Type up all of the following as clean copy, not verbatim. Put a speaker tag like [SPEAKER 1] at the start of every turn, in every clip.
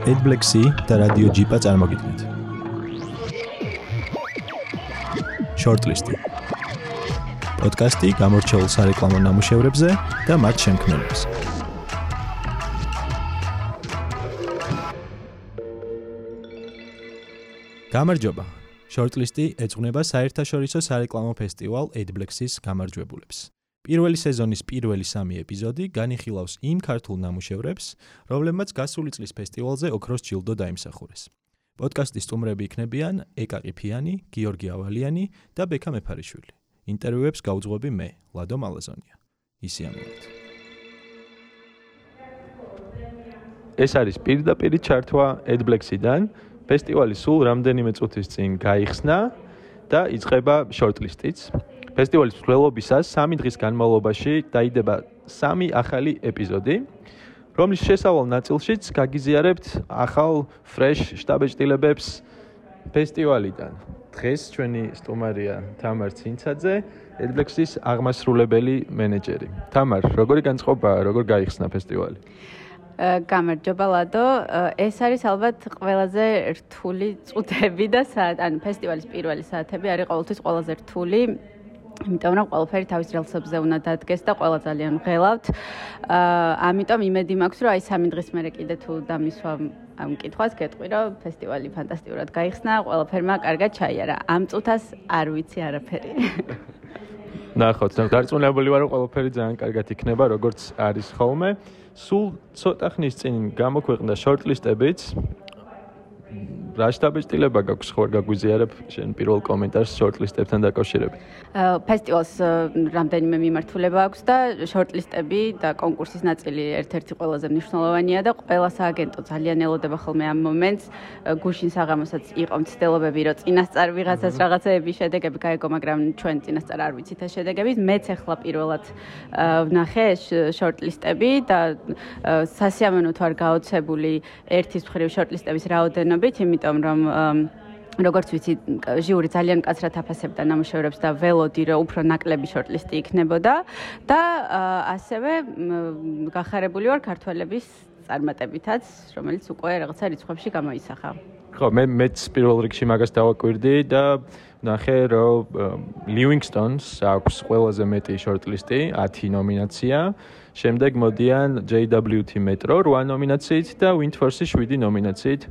[SPEAKER 1] AdBlexi და რადიო ჯიპა წარმოგიდგენთ. Shortlist. პოდკასტი გამორჩეულ სარეკლამო ნამუშევრებზე და მათ შემქმნელებს. გამარჯობა. Shortlist-ი ეძღვნება საერთაშორისო სარეკლამო ფესტივალ AdBlexis გამარჯვებულებს. პირველი სეზონის პირველი 3 ეპიზოდი განიხილავს იმ ქართულ ნამუშევრებს, რომლებმაც გასული წლის ფესტივალზე ოქროს ჯილდო დაიმსახურეს. პოდკასტის სტუმრები იქნებიან ეკა ყიფიანი, გიორგი ავალიანი და ბექა მეფარიშვილი. ინტერვიუებს გავუძღვები მე, ლადო მალაზონია. ისიამოვნებთ. ეს არის პირდაპირი ჩართვა AdBlexi-დან. ფესტივალი სულ რამდენიმე წუთის წინ გაიხსნა და იწყება shortlist-იც. ფესტივალის მსვლელობისას 3 დღის განმავლობაში დაიდება 3 ახალი ეპიზოდი, რომლის შესავალ ნაწილშიც გაგიზიარებთ ახალ fresh შტაბეჭდილებებს ფესტივალიდან. დღეს ჩვენი სტუმარია თამარ ცინცაძე, AdBlexis აღმასრულებელი მენეჯერი. თამარ, როგორი განწყობაა, როგორ გაიხსნა ფესტივალი?
[SPEAKER 2] გამარჯობა ლადო, ეს არის ალბათ ყველაზე რთული წუთები და ანუ ფესტივალის პირველი საათები არის ყოველთვის ყველაზე რთული. იმიტომ რომ ყველაფერი თავის რელსებზე უნდა დადგეს და ყველა ძალიან ვღელავთ. ამიტომ იმედი მაქვს, რომ აი 3 დღის მერე კიდე თუ დამისვა ამ კითხვას, გეტყვი, რომ ფესტივალი ფანტასტიკურად გაიხსნა, ყველაფერმა კარგად ჩაიარა. ამ წუთას არ ვიცი არაფერი.
[SPEAKER 1] ნახოთ, დარწმუნებული ვარ, რომ ყველაფერი ძალიან კარგად იქნება, როგორც არის ხოლმე. სულ ცოტა ხნის წინ გამოქვეყნდა shortlist-ებიც. რა შტაბეჭდილება გაქვს ხო გაგვიზიარებ შენ პირველ კომენტარს shortlist-ებთან დაკავშირებით?
[SPEAKER 2] ფესტივალს რამდენიმე მიმართულება აქვს და shortlist-ები და კონკურსის ნაწილი ერთ-ერთი ყველაზე მნიშვნელოვანია და ყველა სააგენტო ძალიან ელოდება ხოლმე ამ მომენტს. გუშინ საღამოსაც იყო მცდელობები, რომ წინასწარ ვიღაცას რაღაცეების შედეგები გაიგო, მაგრამ ჩვენ წინასწარ არ ვიცით ეს შედეგები. მეც ახლა პირველად ვნახე shortlist-ები და სასიამოვნოდ ვარ გაოცებული ერთის მხრივ shortlist-ების რაოდენობით, იმიტომ რომ როგორც ვიცი, ჟიური ძალიან მკაცრად აფასებდა ნამუშევრებს და ველოდი, რომ უფრო ნაკლები shortlist-ი იქნებოდა და ასევე გახარებული ვარ ქართველების წარმატებითაც, რომელიც უკვე რაღაცა რიცხვებში გამოისახა.
[SPEAKER 1] ხო, მეც პირველ რიგში მაგას დავაკვირდი და ნახე, რომ Livingstone-ს აქვს ყველაზე მეტი shortlist-ი, 10 ნომინაცია. შემდეგ მოდიან JWT Metro 8 ნომინაციით და Windforce 7 ნომინაციით.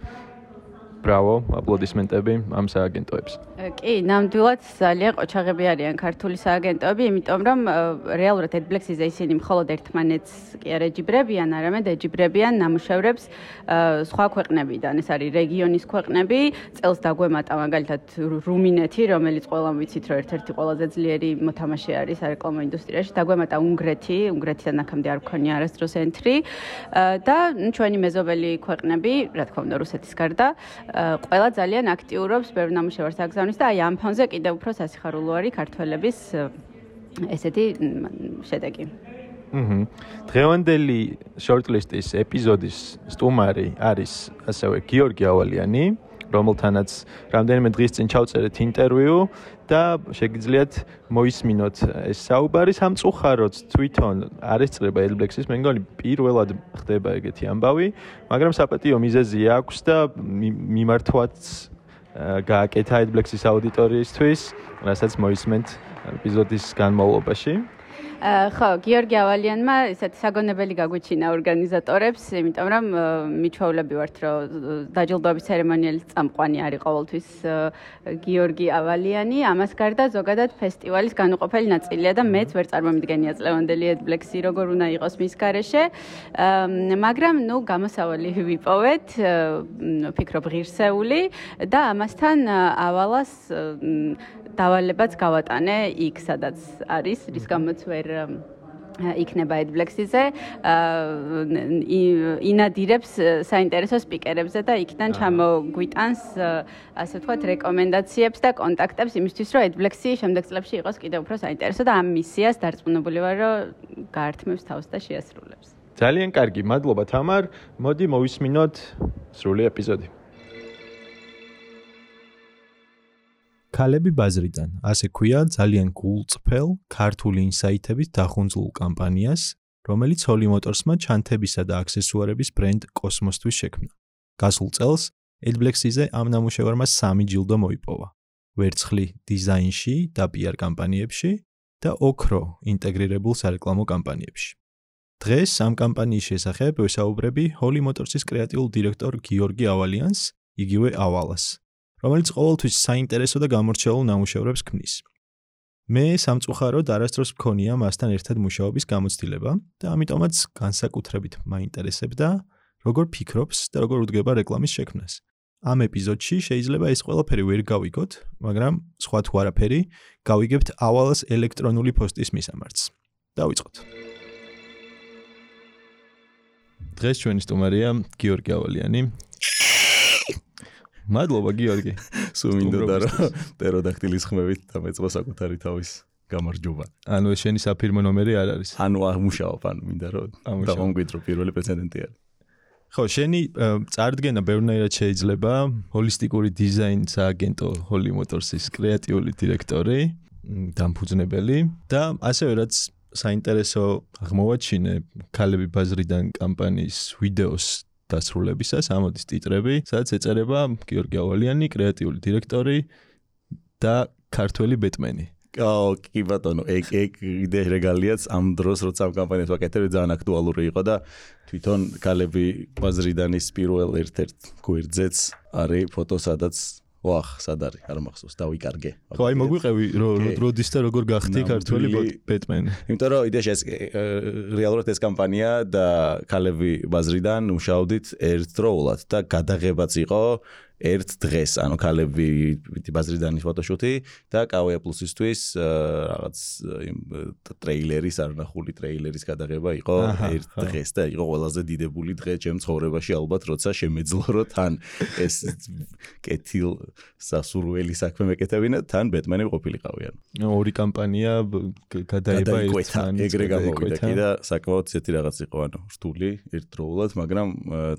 [SPEAKER 1] ბრავო, აპლოდისმენტები ამ სააგენტოებს.
[SPEAKER 2] კი, ნამდვილად ძალიან ყოჩაღები არიან ქართული სააგენტოები, იმიტომ რომ რეალურად AdBlexis-ზე ისინი მხოლოდ ერთმანეთს კი არ ეჯიბრებიან, არამედ ეჯიბრებიან ნამუშევრებს სხვა ქვეყნებიდან. ეს არის რეგიონის ქვეყნები, წელს დაგვემატა მაგალითად რუმინეთი, რომელიც ყველამ ვიცით, რომ ერთ-ერთი ყველაზე ძლიერი მოთამაშე არის სარეკლამო ინდუსტრიაში, დაგვემატა უნგრეთიდან აქამდე არ მქონია არასდროს entry და ჩვენი მეზობელი ქვეყნები, რა თქმა უნდა, რუსეთის გარდა, ყველა ძალიან აქტიურობს ბევრ ნამუშევარს აგზავნის და აი ამ ფონზე კიდევ უფრო სასიხარულო არის ქართველების ესეთი შედეგი.
[SPEAKER 1] დღევანდელი shortlist-ის ეპიზოდის სტუმარი არის ასევე გიორგი ავალიანი, რომელთანაც რამდენიმე დღის წინ ჩავწერეთ ინტერვიუ და შეგიძლიათ მოისმინოთ ეს საუბარი. სამწუხაროდ თვითონ არ ესწრება AdBlexis, მე მგონი პირველად ხდება ეგეთი ამბავი, მაგრამ საპატიო მიზეზი აქვს და მიმართვაც გააკეთა AdBlexis აუდიტორიისთვის, რასაც მოისმენთ ეპიზოდის განმავლობაში.
[SPEAKER 2] ხო, გიორგი ავალიანმა ესეთი საგონებელი გაგვიჩინა ორგანიზატორებს, იმიტომ რომ მიჩვეულები ვართ, რომ დაჯილდოების ცერემონიალის წამყვანი არის ყოველთვის გიორგი ავალიანი. ამას გარდა ზოგადად ფესტივალის განუყოფელი ნაწილია და მეც ვერ წარმომიდგენია წლევანდელი AdBlexi როგორ უნდა იყოს მის გარეშე. მაგრამ გამოსავალი ვიპოვეთ, ვფიქრობ ღირსეული და ამასთან ავალას დავალებაც გავატანე იქ, სადაც არის, რის გამოც ვერ იქნება AdBlexis-ზე, ინადირებს საინტერესო სპიკერებზე და იქიდან ჩამოგვიტანს, ასე ვთქვათ, რეკომენდაციებს და კონტაქტებს იმისთვის, რომ AdBlexi შემდეგ წლებში იყოს კიდევ უფრო საინტერესო და ამ მისიას დარწმუნებული ვარ, რომ გაართმევს თავს და შეასრულებს.
[SPEAKER 1] ძალიან კარგი, მადლობა თამარ. მოდი მოვისმინოთ სრული ეპიზოდი. ქალები ბაზრიდან, ასე ქვია ძალიან გულწრფელ ქართული ინსაიტებით დახუნძლულ კამპანიას, რომელიც Holy Motors-მა ჩანთებისა და აქსესუარების ბრენდ კოსმოსთვის შექმნა. გასულ წელს AdBlexy-ზე ამ ნამუშევარმა 3 ჯილდო მოიპოვა. ვერცხლი დიზაინში და PR კამპანიებში და ოქრო ინტეგრირებულ სარეკლამო კამპანიებში. დღეს ამ კამპანიის შესახებ ვესაუბრები Holy Motors-ის კრეატიულ დირექტორ გიორგი ავალიანს, იგივე ავალას, რომელიც ყოველთვის საინტერესო და გამორჩეულ ნამუშევრებს ქმნის. მე სამწუხაროდ არასდროს მქონია მასთან ერთად მუშაობის გამოცდილება და ამიტომაც განსაკუთრებით მაინტერესებდა, როგორ ფიქრობს და როგორ უდგება რეკლამის შექმნას. ამ ეპიზოდში შეიძლება ეს ყველაფერი ვერ გავიგოთ, მაგრამ სხვა თუ არაფერი, გავიგებთ ავალას ელექტრონული პოსტის მისამართს. დავიწყოთ. დღეს ჩვენი სტუმარია გიორგი ავალიანი. მადლობა გიორგი.
[SPEAKER 3] სულ მინდოდა რომ პტეროდაქტილის ხმებით დამეწყო საკუთარი თავის გამარჯობა.
[SPEAKER 1] ანუ ეს შენი საფირმო ნომერი არ არის.
[SPEAKER 3] ანუ აღმუშავებ, ანუ მინდა რომ დავამკვიდრო პირველი პრეცედენტი არის.
[SPEAKER 1] ხო, შენი წარდგენა ბევრნაირად შეიძლება, ჰოლისტიკური დიზაინის აგენტო Holy Motors-ის კრეატიული დირექტორი, დამფუძნებელი და ასევე რაც საინტერესო აღმოვაჩინე ქალები ბაზრიდან კამპანიის ვიდეოს დასრულებისას ამოდის ტიტრები, სადაც ეწერება გიორგი ავალიანი, კრეატიული დირექტორი და ქართველი ბეტმენი.
[SPEAKER 3] კი ბატონო, ეგ იდეა რეგალიაც ამ დროს როცა ამ კამპანიას ვაკეთებ ძალიან აქტუალური იყო და თვითონ ქალები ბაზრიდანის პირველ ერთ-ერთ გვერდზეც არის ფოტო, სადაც სად არის, არ მახსოვს, დავიკარგე.
[SPEAKER 1] ხო, აი მოგვიყევი როდის და როგორ გახდი ქართველი ბეტმენი.
[SPEAKER 3] იმიტომ რომ იდეაში ეს რეალურად ეს კამპანია და ქალები ბაზრიდან მუშაობდით ერთდროულად და გადაღებაც იყო ერთ დღეს, ანუ ქალები ბაზრიდანის ფოტოშუტი და Kawaii Plus-ისთვის რაღაც ტრეილერის, არნახული ტრეილერის გადაღება იყო ერთ დღეს და იყო ყველაზე დიდებული დღე ჩემ ცხოვრებაში ალბათ, როცა შემეძლო რომ თან ეს კეთილ სასურველი საქმე მეკეთებინა, თან ბეტმენი ყოფილიყავი ანუ.
[SPEAKER 1] ორი კამპანია გადაება ერთმანეთს.
[SPEAKER 3] ეგრე გამოვიდა კი და საკმაოდ ისეთი რაღაც იყო, ანუ რთული ერთდროულად, მაგრამ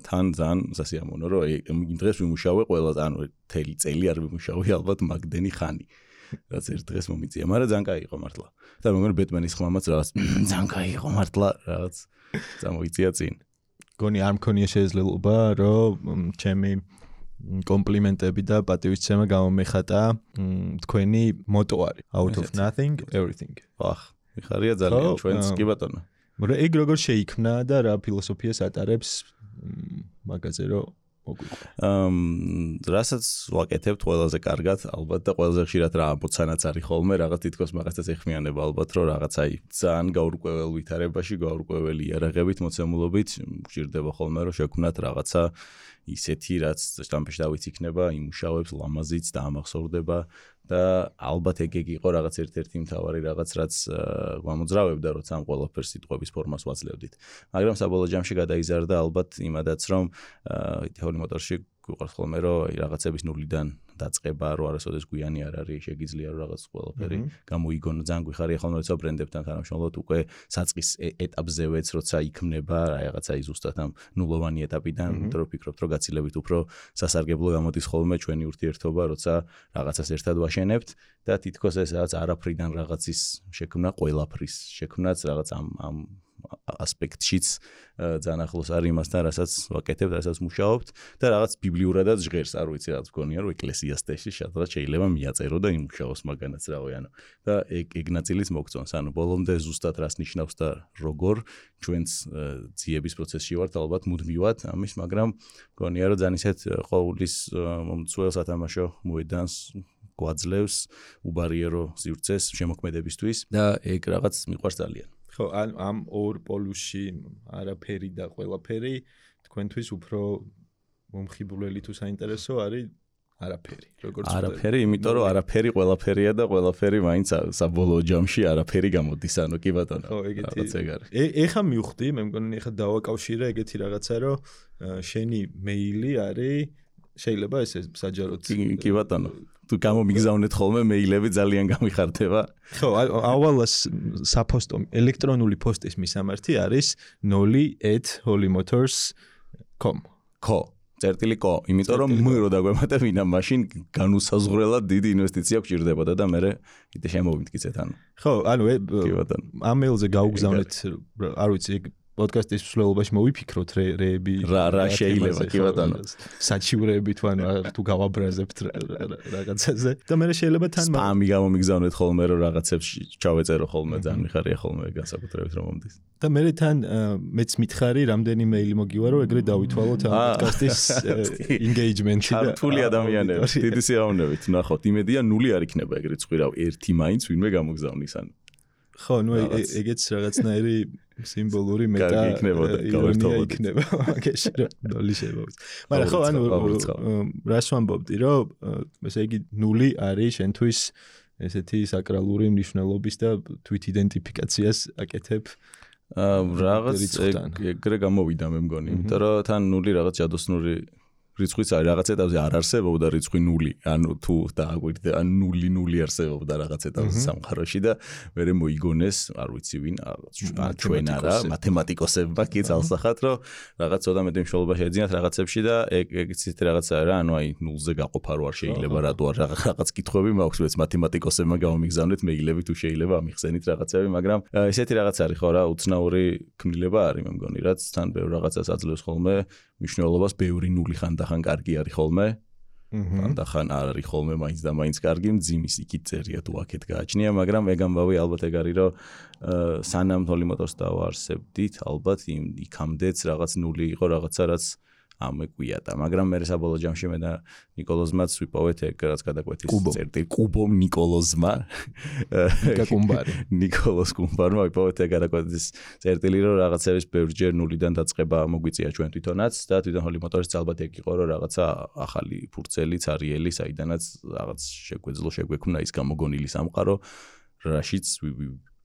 [SPEAKER 3] თან ძალიან სასიამოვნო რომ იმ დღეს ვიმუშავე ყველას, ანუ მთელი წელი არ ვიმუშავე ალბათ მაგდენი ხანი. რაც ერთ დღეს მომიწია, მაგრამ ძალიან კაი იყო მართლა. და მეგონი ბეტმენის ხმამაც რაღაც ძალიან კაი იყო მართლა, რაღაც წამოიწია წინ.
[SPEAKER 1] გონი არ მქონია შესაძლებლობა, რომ ჩემი კომპლიმენტები და პატივისცემა გამომეხატა თქვენი მოტო არის out of nothing everything.
[SPEAKER 3] მიხარია ძალიან ჩვენს კი ბატონო.
[SPEAKER 1] მაგრამ ეგ როგორ შეიქმნა და რა ფილოსოფიას ატარებს მაგაზე რომ
[SPEAKER 3] რასაც ვაკეთებთ ყველაზე კარგად, ალბათ და ყველაზე ხშირად რა ამბოცანაც არის ხოლმე, რაღაც თითქოს მაგასაც ეხმიანება ალბათ, რომ რაღაც აი ძალიან გაურკვეველ ვითარებაში, გაურკვეველი იარაღებით, მოცემულობით გვჭირდება ხოლმე, რომ შექმნათ რაღაცა ისეთი, რაც შტამპეში დავიციქნება, იმუშავებს, ლამაზიც და ამახსოვრდება და ალბათ ეგ იყო რაღაც ერთ-ერთი მთავარი რაღაც, რაც გამოძრავებდა, როცა ამ ყველაფერს სიტყვების ფორმას ვაძლევდით. მაგრამ საბოლოო ჯამში გადაიზარდა ალბათ იმადაც, რომ Holy Motors-ში გვიყავს ხოლმე, რომ რაღაცების ნულიდან დაწყება, რომ არასოდეს გვიანი არ არის, შეგიძლია რომ რაღაც ყველაფერი გამოიგონო, ძალიან გვიხარია ხოლმე, როცა ბრენდებთან თანამშრომლობთ, უკვე საწყის ეტაპზევეც, როცა იქმნება რაღაცა ზუსტად ამ ნულოვანი ეტაპიდან, იმიტომ რომ ვფიქრობთ, რომ გაცილებით უფრო სასარგებლო გამოდის ხოლმე ჩვენი ურთიერთობა, როცა რაღაცას ერთად ვაშენებთ და თითქოს ეს რაღაც არაფრიდან რაღაცის შექმნა, ყველაფრის შექმნაც რაღაც ამ ასპექტშიც ძალიან ახლოს არის იმასთან, რასაც ვაკეთებთ, რასაც მუშაობთ და რაღაც ბიბლიურადაც ჟღერს, არ ვიცი, რაღაც გონია, რომ ეკლესიასტეში სადღაც შეიძლება მიაწერო და იმუშაოს მაგანაც რავი, ანუ და ეგ ნაწილიც მოგწონს, ანუ ბოლომდე ზუსტად რას ნიშნავს და როგორ ჩვენს ძიების პროცესში ვართ ალბათ მუდმივად ამის, მაგრამ გონია, რომ ძალიან ისეთ ყოვლის მომცველ სათამაშო მოედანს გვაძლევს უბარიერო სივრცეს შემოქმედებისთვის და ეგ რაღაც მიყვარს ძალიან.
[SPEAKER 1] ხო, ამ ორ პოლუსში არაფერი და ყველაფერი თქვენთვის უფრო მომხიბვლელი თუ საინტერესო არის არაფერი. როგორც
[SPEAKER 3] არაფერი, იმიტომ რომ არაფერი ყველაფერია და ყველაფერი მაინც საბოლოო ჯამში არაფერი გამოდის, ანუ კი ბატონო.
[SPEAKER 1] ხო, ეგეთი. ეხა მივხვდი, მე მგონი ეხა დავაკავშირე ეგეთი რაღაცა, რომ შენი მეილი არის შეიძლება ესე საჯაროდ.
[SPEAKER 3] კი ბატონო. თუ გამომიგზავნეთ ხოლმე მეილები ძალიან გამიხარდება.
[SPEAKER 1] ხო, ავალას საფოსტო ელექტრონული პოსტის მისამართი არის 0@holymotors.com.
[SPEAKER 3] ხო, წერტილი.co, იმიტომ რომ რო დაგვემატებ ვინა მაშინ განუსაზღვრელად დიდი ინვესტიცია გვჭირდებოდა და მე კიდე შემოვიმტკიცეთ ანუ.
[SPEAKER 1] ხო, ანუ ამ მეილზე გაუგზავნეთ, არ ვიცი, პოდკასტის მსვლელობაში მოვიფიქროთ რეები
[SPEAKER 3] რა შეიძლება კი ბატონო
[SPEAKER 1] საჩივრეები თან თუ გავაბრაზებთ რაღაცაზე და მე შეიძლება თან
[SPEAKER 3] სპამი გამომიგზავნეთ ხოლმე რომ რაღაცებს ჩავეწერო ხოლმე ძალიან მიხარია ხოლმე განსაკუთრებით რომ მომდის
[SPEAKER 1] და მე თან მეც მითხარი რამდენი მეილი მოგივა რომ ეგრე დავითვალოთ ამ პოდკასტის engagement-ი და
[SPEAKER 3] ქართული ადამიანები დიდი სიამოვნებით ნახოთ იმედია 0 არ იქნება ეგრე წვირავ ერთი მაინც ვინმე გამოგზავნის ან
[SPEAKER 1] ხო ნუ ეგეც რაღაცნაირი სიმბოლური მეტა იქნება მაგაში რომ ნული შემოვიდეს მაგრამ ხო ანუ რას ვამბობდი რომ ესე იგი 0 არის შენთვის ესეთი საკრალური მნიშვნელობის და თვით იდენტიფიკაციას აკეთებ
[SPEAKER 3] რაღაც ეგრე გამოვიდა მე მგონი იმიტომ რომ თან 0 რაღაც ჯადოსნური რიცხვიც არის რაღაც ეტაპზე არ არსებობდა რიცხვი 0 ანუ თუ დააგვირდა 0 არსებობდა რაღაც ეტაპზე სამყაროში და მე მოიგონეს არ ვიცი ვინ ჩვენ არა მათემატიკოსებმა კი ძალსახად რომ რაღაც ცოტა მეტი მნიშვნელობა შეეძინათ რაღაცებში და ეგეც ისეთი რაღაცაა რა ანუ აი 0-ზე გაყოფა რო არ შეიძლება რატო არ რაღაც კითხვები მაქვს მეც მათემატიკოსებმა გამომიგზავნეთ მეილები თუ შეიძლება ამიხსენით რაღაცები მაგრამ ესეთი რაღაც არის ხო რა უცნაური ქმნილება არის მე მგონი რაც თან ბევრ რაღაცას აძლევს ხოლმე მნიშვნელობას ბევრი 0 ხან კარგი არის ხოლმე. ხან არ არის ხოლმე მაინც და მაინც კარგი მძიმის იქით წერია თუ აქეთ გააჩნია, მაგრამ ეგ ამბავი ალბათ ეგ არის რომ სანამ თოლიმოტოს დავარსებდით, ალბათ იქამდეც რაღაც 0 იყო რაღაცა რაც ამეკვიატა, მაგრამ მე საბოლოო ჯამში მე და ნიკოლოზმაც ვიპოვეთ ეგ რაც გადაკვეთის წერტილი კუბომ ნიკოლოზმა ნიკოლოზ კუმბარმა ვიპოვეთ ეგ გადაკვეთის წერტილი რომ რაღაცების ბევრჯერ 0-დან დაწყება მოგვიწია ჩვენ თვითონაც და თვითონ ჰოლი მოტორის ალბათ ეგ იყო რომ რაღაცა ახალი ფურცელი ცარიელი საიდანაც რაღაც შეგვექმნა ის გამოგონილი სამყარო რაშიც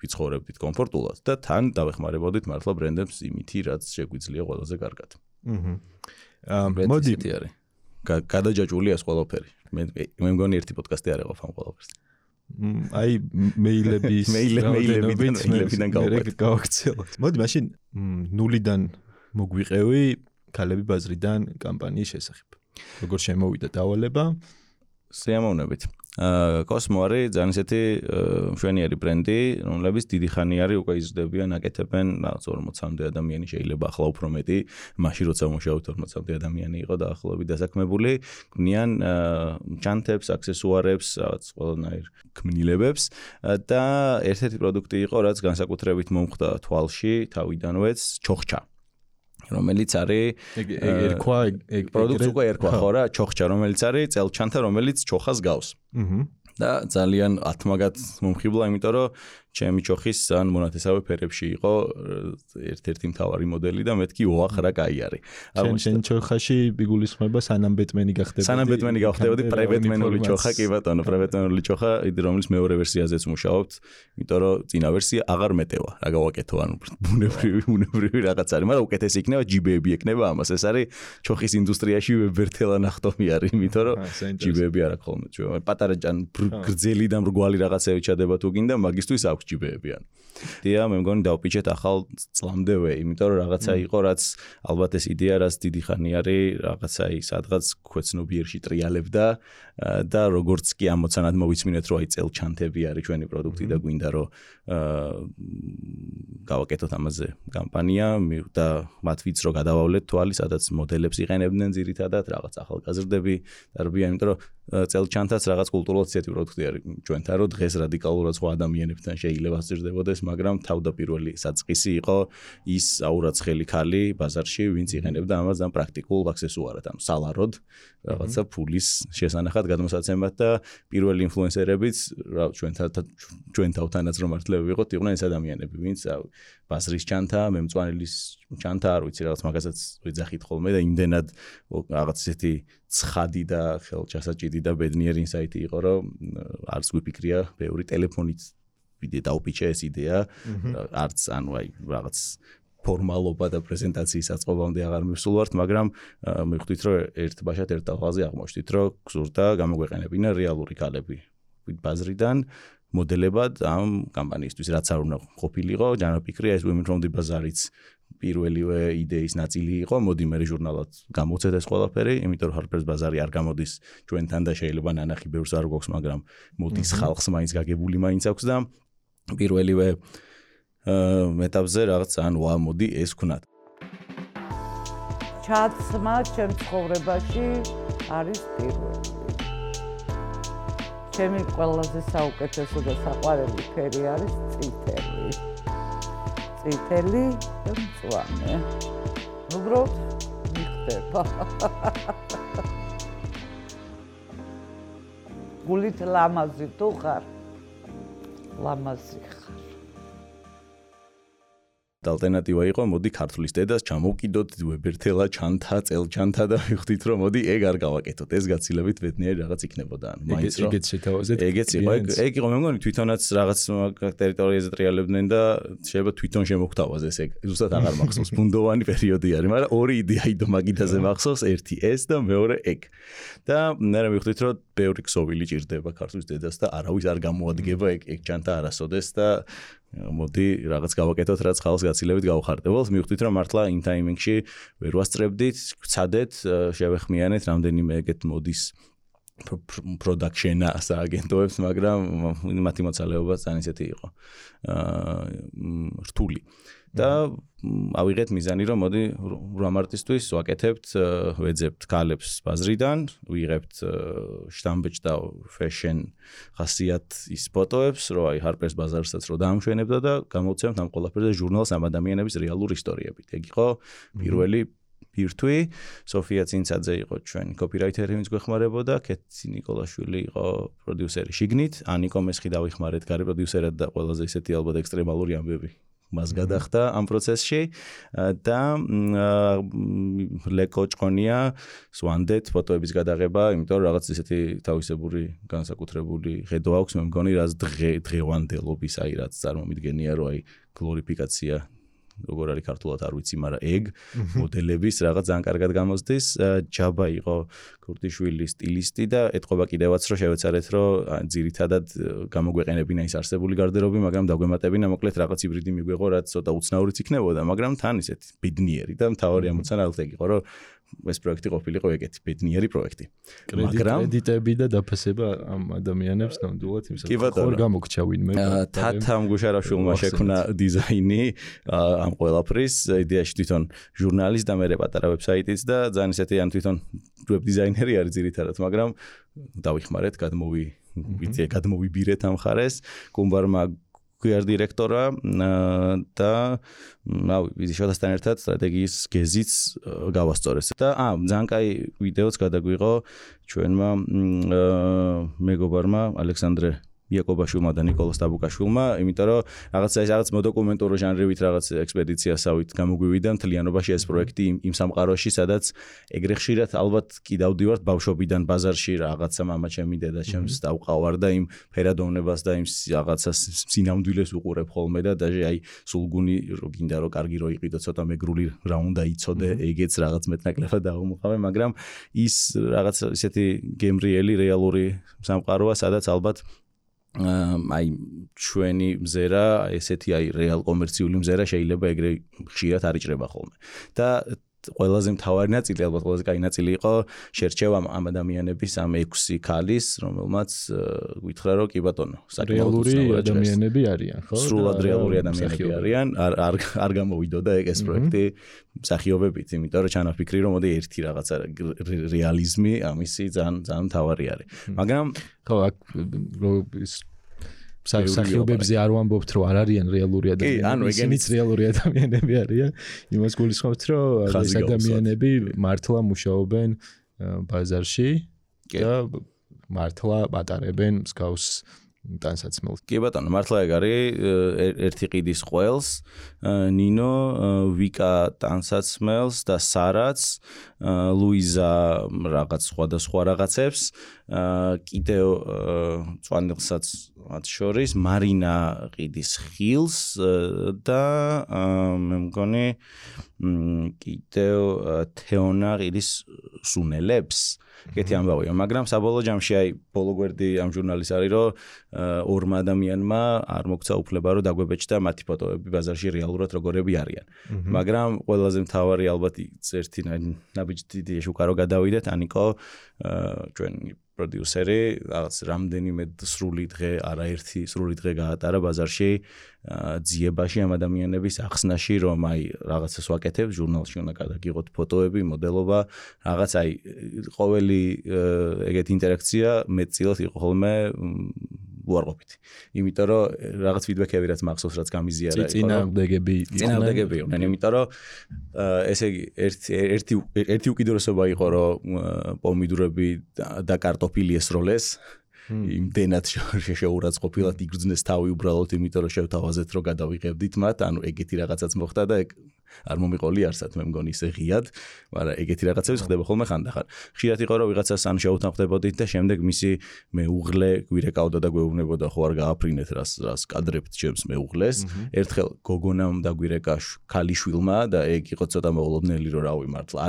[SPEAKER 3] ვიცხოვრებდით კომფორტულად და თან დავეხმარებოდით მართლა ბრენდებს იმითი რაც შეგვიძლია ყველაზე კარგად.
[SPEAKER 1] მოდი
[SPEAKER 3] გადაჯაჭვული ეს ყველაფერი. მე მგონი ერთი პოდკასტი არ ეყოფ ამ ყველაფერს.
[SPEAKER 1] აი მეილებიდან გავაქცევთ. მოდი მაშინ 0-დან მოგვიყევი ქალები ბაზრიდან კამპანიის შესახებ. როგორ შემოვიდა დავალება?
[SPEAKER 3] სიამოვნებით. კოსმო არის ძალიან ისეთი მშვენიერი ბრენდი, რომლებიც დიდი ხანი არის უკვე იზრდებიან, აკეთებენ რაღაც 40-მდე ადამიანი შეიძლება ახლა უფრო მეტი, მაშინ როცა მუშაობთ 40-მდე ადამიანი იყო დაახლოებით დასაქმებული, ქმნიან ჩანთებს, აქსესუარებს, რაღაც ყველანაირ ქმნილებებს და ერთ-ერთი პროდუქტი იყო, რაც განსაკუთრებით მომხდა თვალში, თავიდანვეც ჩოხჩა. რომელიც არის
[SPEAKER 1] ერქვა
[SPEAKER 3] პროდუქტი უკვე ერქვა ხო რა ჩოხჩა რომელიც არის წელჩანთა რომელიც ჩოხას გავს და ძალიან ათმაგად მომხიბლა იმიტომ რომ ჩემი ჩოხის ძალიან მონათესავე ფერებში იყო ერთ-ერთი მთავარი მოდელი და მეთქი ოახ რა კაი არის.
[SPEAKER 1] შენ ჩოხაში იგულისხმება სანამ ბეტმენი გახდებოდი.
[SPEAKER 3] სანამ ბეტმენი გავხდებოდი პრებეტმენული ჩოხა კი ბატონო პრებეტმენული ჩოხა რომელიც მეორე ვერსიაზეც მუშაობთ იმიტომ რომ წინა ვერსია აღარ მეტევა რა გავაკეთო ანუ ბუნებრივი რაღაც არის მაგრამ უკეთესი იქნება ჯიბეები ექნება ამას ეს არის ჩოხის ინდუსტრიაში ვებერთელა ნახტომი არის იმიტომ რომ ჯიბეები არ აქვს ხოლმე ჩვენ პატარა გრძელი და მრგვალი რაღაცები ჩადება თუ გინდა მაგისთვის აქვს ჯიბეებიან. დია მე მგონი დავპიჩეთ ახალ წლამდევე, იმიტომ რომ რაღაცა იყო, რაც ალბათ ეს იდეა რაც დიდი ხანი არის, რაღაცა ის სადღაც ქვეცნობიერში ტრიალებდა და როგორც კი ამოცანად მოვიცმინეთ, რომ აი წელჩანთები არის ჩვენი პროდუქტი და გვინდა რომ გავაკეთოთ ამაზე კამპანია და მათ ვიცრო გადავავლეთ თვალი, სადაც მოდელებს იყენებდნენ ძირითადად, რაღაც ახალგაზრდები დარბიან, იმიტომ რომ წელჩანთაც რაღაც კულტურულად ისეთი პროდუქტი არის ჩვენთან, რომ დღეს რადიკალურად სხვა ადამიანებთან შეიძლება სჭირდებოდეს, მაგრამ თავდაპირველი საწყისი იყო ის აურაცხელი ქალი ბაზარში, ვინც იყენებდა ამას და პრაქტიკულ აქსესუარად, ანუ სალაროდ რაღაცა ფულის შესანახად გადმოსაცემად და პირველი ინფლუენსერებიც ჩვენ თავთანაც რომ მართლები ვიყოთ, იყვნენ ეს ადამიანები, ვინც ბაზრის ჩანთა, მემწვანელის ჩანთა, არ ვიცი რაღაც მაგასაც ვეძახით ხოლმე და იმდენად რაღაც ესეთი ცხადი და ხელჩასაჭიდი და ბედნიერი ინსაიტი იყო, რომ არც გვიფიქრია ბევრი ტელეფონით დავპიჩე ეს იდეა, არც ანუ აი რაღაც ფორმალობა და პრეზენტაციის აწყობამდე აღარ მივსულვართ, მაგრამ მივხვდით, რომ ერთ ბაშად ერთ ტალღაზე აღმოჩნდით, რომ გზურდა გამოგვეყენებინა რეალური ქალები ბაზრიდან მოდელებად ამ კამპანიისთვის, რაც არ უნდა ყოფილიყო, ჯანმრთელია ეს Women from the Bazaar-იც პირველივე იდეის ნაწილი იყო, მოდი მე ჟურნალად გამოვცეთ ეს ყველაფერი, იმიტომ რომ Harper's Bazaar-ი არ გამოდის ჩვენთან და შეიძლება ნანახი ბევრს არ გვაქვს, მაგრამ მოდის ხალხს მაინც გაგებული მაინც აქვს და პირველივე ეტაპზე რაღაც ძალიან ვა მოდი ეს ვქნათ.
[SPEAKER 4] ჩაცმა ჩემ ცხოვრებაში არის პირველი. ჩემი ყველაზე საუკეთესო და საყვარელი ფერი არის წითელი. წითელი და მწვანე. უბრალოდ მიხდება. გულით ლამაზი თუ ხარ? ლამაზი ხარ.
[SPEAKER 3] ალტერნატივა იყო, მოდი ქართლის დედას ჩამოვკიდოთ ვებერთელა ჩანთა, წელჩანთა და ვიხდით რომ მოდი ეგ არ გავაკეთოთ. ეს გაცილებით ბედნიერი რაღაც იქნებოდა. ანუ მაინც რომ
[SPEAKER 1] ეგეც შეთავაზეთ.
[SPEAKER 3] ეგეც იყო. ეგ იყო მე მგონი თვითონაც რაღაც ტერიტორიაზე ტრიალებდნენ და შეიძლება თვითონ შემოგთავაზეს ეგ. ზუსტად აღარ მახსოვს. ბუნდოვანი პერიოდი არის, მაგრამ ორი იდეა იდო მაგიდაზე მახსოვს, ერთი ეს და მეორე ეგ. და მე ვიხდით რომ ბევრი ქსოვილი ჭირდება ქართლის დედას და არავის არ გამოადგება ეგ ჩანთა არასოდეს და მოდი რაღაც გავაკეთოთ, რაც ხალხს გაცილებით გავხარდებულს. მივხვდით რომ მართლა იმ ტაიმინგში ვერ ვასწრებდით, ვცადეთ, შევეხმიანეთ რამდენიმე ეგეთ მოდის production-ა სააგენტოებს, მაგრამ მათი მოცალეობა ძალიან ისეთი იყო. რთული. და ავიღეთ მიზანი რომ მოდი 8 მარტისთვის ვაკეთებთ, ვეძებთ ქალებს ბაზრიდან, ვიღებთ შტამბეჭ და fashion ხასიათის ფოტოებს, რომ აი Harper's Bazaar-საც რო დაამშვენებდა და გამოვცემთ ამ ყველაფერზე ჟურნალს ამ ადამიანების რეალური ისტორიებით. ეგ იყო პირველი ბირთვი. სოფია წინცაძე იყო ჩვენი კოპირაიტერი, ვინც გვეხმარებოდა, კეთი ნიკოლაშვილი იყო პროდიუსერი შიგნით, ანიკო მესხი დავიხმარეთ გარე პროდიუსერად და ყველაზე ისეთი ალბათ ექსტრემალური ამბები მას გადახდა ამ პროცესში და ლეკო ჭყონია სვანდეთ ფოტოების გადაღება, იმიტომ რომ რაღაც ისეთი თავისებური განსაკუთრებული ხედვა აქვს, მე მგონი რაც დღევანდელობის, აი რაც წარმომიდგენია, რომ აი გლორიფიკაცია როგორ არის ქართულად არ ვიცი, მაგრამ ეგ მოდელების რაღაც ძალიან კარგად გამოსდის. ჯაბა იყო ქურთიშვილი სტილისტი და ეთყობა კიდევაც რომ შევეცარეთ რომ ძირითადად გამოგვეყენებინა ის არსებული გარდერობი, მაგრამ დაგვემატებინა მოკლედ რაღაც ჰიბრიდი მიგვეღო, რაც ცოტა უცნაურიც იქნებოდა, მაგრამ თან ისეთი ბედნიერი და მთავარი ამოცანა ალბათ იყო რომ ეს პროექტი ყოფილიყო ეგეთი ბედნიერი პროექტი.
[SPEAKER 1] კრედიტები და დაფასება ამ ადამიანებს ნამდვილად იმსა ხარ გამოგჩა ვინმე.
[SPEAKER 3] თათამ გუშარაშვილმა შექმნა დიზაინი ამ ყველაფრის, იდეაში თვითონ ჟურნალის და მე პატარა ვებსაიტიც და ძალიან ისეთი ან თვითონ ვებ დიზაინერი არის ძირითადად, მაგრამ დავიხმარეთ, გადმოვიბირეთ ამ ხარეს, კუმბარმა QR დირექტორა და რავი, ვიზიშოდასთან ერთად სტრატეგიის გეზიც გავასწორეს. და ძალიან კაი ვიდეოც გადაგვიღო ჩვენმა მეგობარმა ალექსანდრე იაკობაშვილმა და ნიკოლას დაბუკაშვილმა, იმიტომ რომ რაღაც მოდოკუმენტური ჟანრივით რაღაც ექსპედიციასავით გამოგვივიდა მთლიანობაში ეს პროექტი იმ სამყაროში, სადაც ეგრე ხშირად ალბათ კი დავდივართ ბავშვობიდან ბაზარში რაღაცა მამა ჩემი დედა ჩემს დავყავარ და იმ ფერადოვნებას და იმ რაღაცა სინამდვილეს უყურებ ხოლმე და დაჟე აი სულგუნი რო გინდა რომ კარგი რო იყიდო, ცოტა მეგრული რა უნდა იცოდე, ეგეც რაღაც მეტნაკლებად დავუმყავე, მაგრამ ის რაღაც ისეთი გემრიელი რეალური სამყაროა, სადაც ალბათ აი ჩვენი მზერა, ესეთი აი რეალ კომერციული მზერა შეიძლება ეგრე ხშირად არ იჭრება ხოლმე. და ყველაზე მთავარი ნაწილი, ალბათ ყველაზე კაი ნაწილი იყო შერჩევა ამ ადამიანების ამ 6 ქალის, რომელმაც გითხრა რომ კი ბატონო,
[SPEAKER 1] რეალური ადამიანები არიან, ხო?
[SPEAKER 3] სრულად რეალური ადამიანები არიან, არ გამოვიდოდა ეს პროექტი მსახიობებით, იმიტომ რომ ჩანაფიქრი რომ მოდი ერთი რაღაცა რეალიზმი ამისი ძალიან მთავარი არის. მაგრამ
[SPEAKER 1] ხო, აქ სახიობებზე არ ვამბობთ რომ არ არიან რეალური ადამიანები, ისინიც რეალური ადამიანები არიან. იმას გულისხმობთ რომ ეს ადამიანები მართლა მუშაობენ ბაზარში და მართლა ატარებენ მსგავს ტანსაცმელს.
[SPEAKER 3] კი ბატონო, მართლა ეგ არის ერთი ყიდის ყველს, ნინო, ვიკა ტანსაცმელს და სარაც, ლუიზა რაღაც სხვადასხვა რაღაცებს, კიდევ წვანილსაც მათ შორის, მარინა ყიდის ხილს და მე მგონი კიდევ თეონა ყიდის სუნელებს. კეთი ამბავია, მაგრამ საბოლოო ჯამში აი ბოლო გვერდი ამ ჟურნალის არის რომ ორმა ადამიანმა არ მოგცა უფლება რომ დაგვებეჭდა მათი ფოტოები ბაზარში რეალურად როგორები არიან. მაგრამ ყველაზე მთავარი ალბათ ერთი ნაბიჯი შუკარო გადავიდეთ, ანიკო ჩვენ პროდიუსერი რაღაც რამდენიმე სრული დღე, არაერთი სრული დღე გაატარა ბაზარში ძიებაში ამ ადამიანების ახსნაში, რომ აი რაღაცას ვაკეთებ, ჟურნალში უნდა გადაგიღოთ ფოტოები, მოდელობა, რაღაც აი ყოველი ეგეთი ინტერაქცია მეტწილად იყო ხოლმე უარყოფითი. იმიტომ რომ რაღაც ფიდბექები რაც მახსოვს, რაც გამიზიარა იყო.
[SPEAKER 1] წინააღმდეგები
[SPEAKER 3] იყვნენ, იმიტომ რომ ესე იგი ერთი უკიდურესობა იყო, რომ პომიდურები და კარტოფილი ესროლეს. იმდენად შეურაცხყოფილად იგრძნეს თავი უბრალოდ იმიტომ რომ შევთავაზეთ რომ გადავიღებდით მათ, ანუ ეგეთი რაღაცაც მოხდა და არ მომიყოლი არსად მე მგონი ისე ღიად, მაგრამ ეგეთი რაღაცები ხდება ხოლმე ხანდახან. ხშირად იყო რომ ვიღაცას ან შეუთანხმდებოდით და შემდეგ მისი მეუღლე გვირეკავდა და გვეუბნებოდა ხო არ გააფრინეთ რას კადრებთ ჩემს მეუღლეს. ერთხელ გოგონამ დაგვირეკა ქალიშვილმა და ეგ იყო ცოტა მოულოდნელი რომ რავი მართლა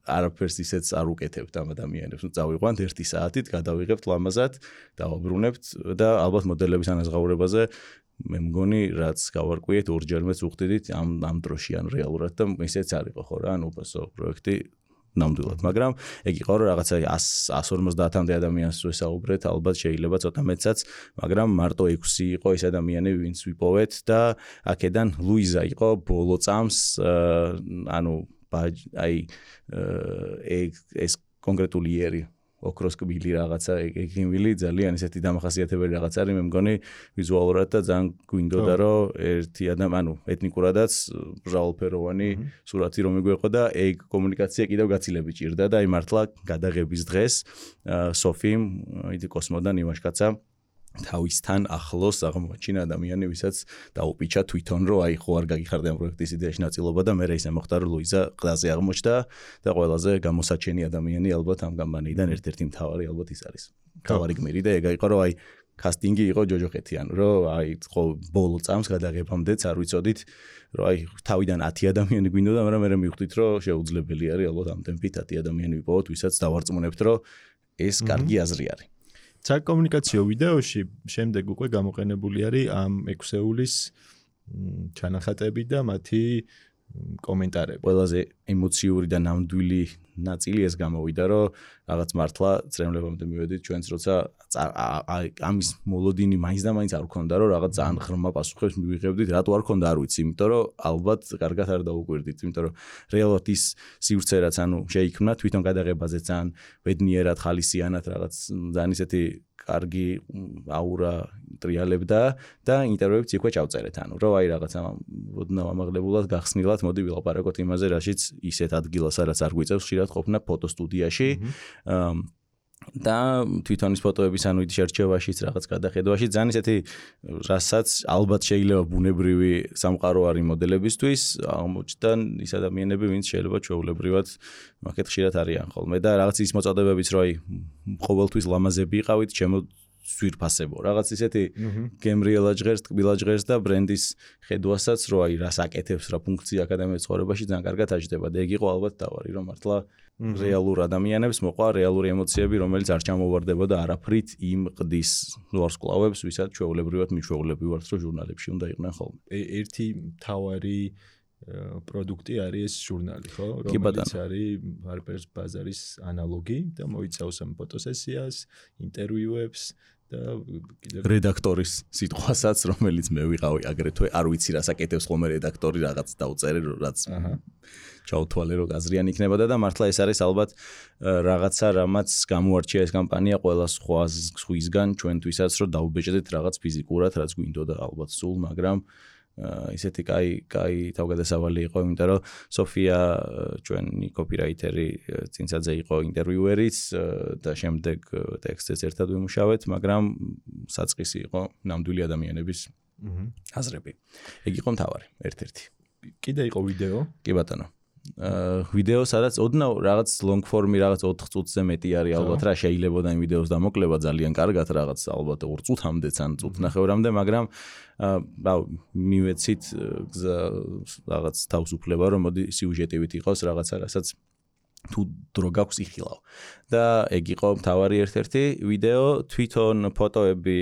[SPEAKER 3] არაფერს ისეც არ უკეთებთ ამ ადამიანებს. წავიყვანთ 1 საათით, გადავიღებთ ლამაზად, დავაბრუნებთ და ალბათ მოდელების ანაზღაურებაზე მე მგონი რაც გავარკვიეთ ორჯერმეც უხდიდით ამ დროში ან რეალურად და ისეც არ იყო ხო რა, ანუ უბრალოდ პროექტი ნამდვილად, მაგრამ ეგ იყო რომ რაღაცა 150-მდე ადამიანს ვესაუბრეთ, ალბათ შეიძლება ცოტა მეცაც, მაგრამ მარტო 6 იყო ეს ადამიანები, ვინც ვიპოვეთ და აქედან ლუიზა იყო ბოლო წამს, ანუ აი ეს კონკრეტული იერი ოქროს კბილი რაღაცა ეგიმილი ძალიან ისეთი დამახასიათებელი რაღაც არის მე მგონი ვიზუალურად და ძალიან გვინდოდა რომ ერთი ანუ ეთნიკურადაც მრავალფეროვანი სურათი რომ მიგვეყო და ეგ კომუნიკაცია კიდევ გაცილებით ჭირდა და აი მართლა გადაღების დღეს სოფიმ იდი კოსმოდან იმაშკაცა თავისთან ახლოს აღმოაჩინა ადამიანი, ვისაც დაუპიჩა თვითონ, რომ აი ხო არ გაგიხარდა ამ პროექტის იდეაში ნაწილობა და მე ისე მოხდა, რომ ლუიზა ყდაზე აღმოჩნდა და ყველაზე გამოსაჩენი ადამიანი ალბათ ამ გამბანიიდან ერთ-ერთი მთავარი ალბათ ის არის. მთავარი გმირი და ეგ იყო, რომ აი კასტინგი იყო ჯოჯოხეთიან, რომ აი ხო ბოლო წამს გადაღებამდეც არ ვიცოდით, რომ აი თავიდან 10 ადამიანი გვინდოდა, მაგრამ მე მივხვდით, რომ შეუძლებელი არის ალბათ ამ ტემპით 10 ადამიანი ვიპოვოთ, ვისაც დავარწმუნებთ, რომ ეს კარგი აზრი არის.
[SPEAKER 1] საკომუნიკაციო ვიდეოში შემდეგ უკვე გამოყენებული არის ამ 6-ეულის ჩანახატები და მათი კომენტარები.
[SPEAKER 3] ყველაზე ემოციური და ნამდვილი ნაწილი ეს გამოვიდა, რომ რაღაც მართლა წრემლებამდე მივედით ჩვენც როცა ამის მოლოდინი მაინც და მაინც არ გქონდა, რომ რაღაც ძალიან ღრმა პასუხებს მივიღებდით, რატო არ გქონდა არ ვიცი, იმიტომ რომ ალბათ კარგად არ დაუკვირდით, იმიტომ რომ რეალურად ის სივრცე რაც ანუ შეიქმნა თვითონ გადაღებაზე ძალიან ბედნიერად ხალისიანად რაღაც ძალიან ისეთი კარგი აურა ტრიალებდა და ინტერვიუებიც იქვე ჩავწერეთ, ანუ რომ აი რაღაცა ოდნავ ამაღლებულად გახსნილად მოდი ვილაპარაკოთ იმაზე, რაშიც ისეთ ადგილას რაც არ გვიწევს ხშირად ყოფნა ფოტოსტუდიაში და თვითონ ის ფოტოების ანუ ის შერჩევაშიც რაღაც გადახედვაში ძალიან ისეთი რასაც ალბათ შეიძლება ბუნებრივი სამყარო არის მოდელებისთვის აღმოჩნდა ის ადამიანები ვინც შეიძლება ჩვეულებრივად მაგეთ ხშირად არიან ხოლმე და რაღაც ის მოწოდებებიც რომ აი ყოველთვის ლამაზები იყავით ჩემო სვირფასებო რაღაც ისეთი გემრიელა ჟღერს, ტკბილა ჟღერს და ბრენდის ხედვასაც რომ აი რას აკეთებს რა ფუნქცია აკადემიის ცხოვრებაში ძალიან კარგად აჯდება და ეგ იყო ალბათ დავარი რომ მართლა რეალურ ადამიანებს მოყვა რეალური ემოციები რომელიც არ ჩამოვარდებოდა არაფრით იმ ყდის ვარსკვლავებს ვისაც ჩვეულებრივად მიჩვეულები ვართ რომ ჟურნალებში უნდა იყვნენ ხოლმე
[SPEAKER 1] ერთი მთავარი პროდუქტი არის ეს ჟურნალი ხო რომელიც არის Harper's Bazaar-ის ანალოგი და მოიცავს ამ ფოტოსესიას ინტერვიუებს და
[SPEAKER 3] რედაქტორის სიტყვასაც რომელიც მე ვიყავი აგრეთვე არ ვიცი რას აკეთებს ხოლმე რედაქტორი რაღაც დაუწერე რაც ჩაუთვალე რომ გაზრიანი იქნებოდა და მართლა ეს არის ალბათ რაღაცა რამაც გამოარჩია ეს კამპანია ყველა სხვისგან ჩვენთვისაც რომ დაუბეჭდეთ რაღაც ფიზიკურად რაც გვინდოდა ალბათ სულ მაგრამ ისეთი კაი თავგადასავალი იყო, იმიტომ რომ სოფია ჩვენი კოპირაიტერი წინსაძე იყო ინტერვიუერიც და შემდეგ ტექსტებს ერთად ვიმუშავეთ, მაგრამ საწყისი იყო ნამდვილი ადამიანების აზრები. ეგ იყო მთავარი, ერთ-ერთი.
[SPEAKER 1] კიდე იყო ვიდეო?
[SPEAKER 3] კი ბატონო. ვიდეო სადაც ოდნავ რაღაც long form-ი რაღაც 4 წუთზე მეტი არის ალბათ რა შეიძლება და იმ ვიდეოს დამოკლება ძალიან კარგად რაღაც ალბათ 2 წუთამდეც ან წუთნახევრამდე მაგრამ მივეცით რაღაც თავისუფლება რომ მოდი სიუჟეტივით იყოს რაღაცა რასაც თუ დრო გაქვს იხილავ. და ეგ იყო მთავარი ერთ-ერთი ვიდეო, თვითონ ფოტოები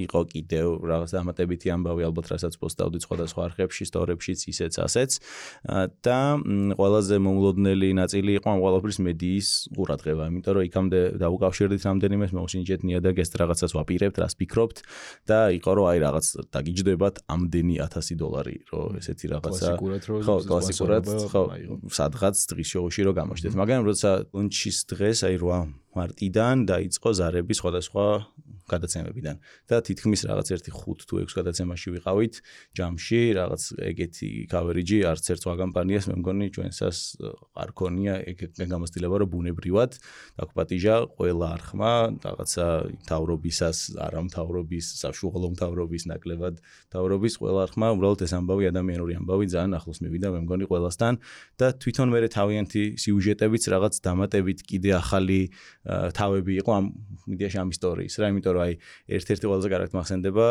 [SPEAKER 3] იყო კიდევ რაღაც დამატებითი ამბავი, ალბათ რასაც პოსტავდი სხვადასხვა არხებში, სტორებშიც, ისეც ასეც. და ყველაზე მომლოდნელი ნაწილი იყო ამ ყველაფრის მედიის ყურადღება, იმიტომ რომ იქამდე დაუკავშირდით რამდენიმე მოусინჯეთ ნიადაგს რაღაცას ვაპირებთ, რას ფიქრობთ და იყო რომ აი რაღაც დაგიჯდებათ ამდენი $1000, რომ ესეთი რაღაცა კლასიკურად სადღაც დღის შოუში რომ გამოჩნდეთ. მაგრამ როცა ლუნჩის დღეს აი 8 მარტიდან დაიწყო ზარები სხვადასხვა გადაცემებიდან და თითქმის რაღაც 1-5 თუ 6 გადაცემაში ვიყავით ჯამში, რაღაც ეგეთი coverage არც ერთ სხვა კომპანიას მე მგონი ჩვენსას არ ქონია ეგ გამოცდილება რომ ბუნებრივად დაგვპატიჟა ყველა არხმა რაღაცა მთავრობისას, არამთავრობის, საშუალო მთავრობის, ნაკლებად მთავრობის ყველა არხმა უბრალოდ ეს ამბავი ადამიანური ამბავი ძალიან ახლოს მივიდა მე მგონი ყველასთან და თვითონ მე თავიანთი სიუჟეტებიც რაღაც დამატებით კიდე ახალი თავები იყო ამ მედიაში ამ ისტორიის რა, იმიტომ რომ აი ერთ-ერთი ყველაზე კარგად მახსენდება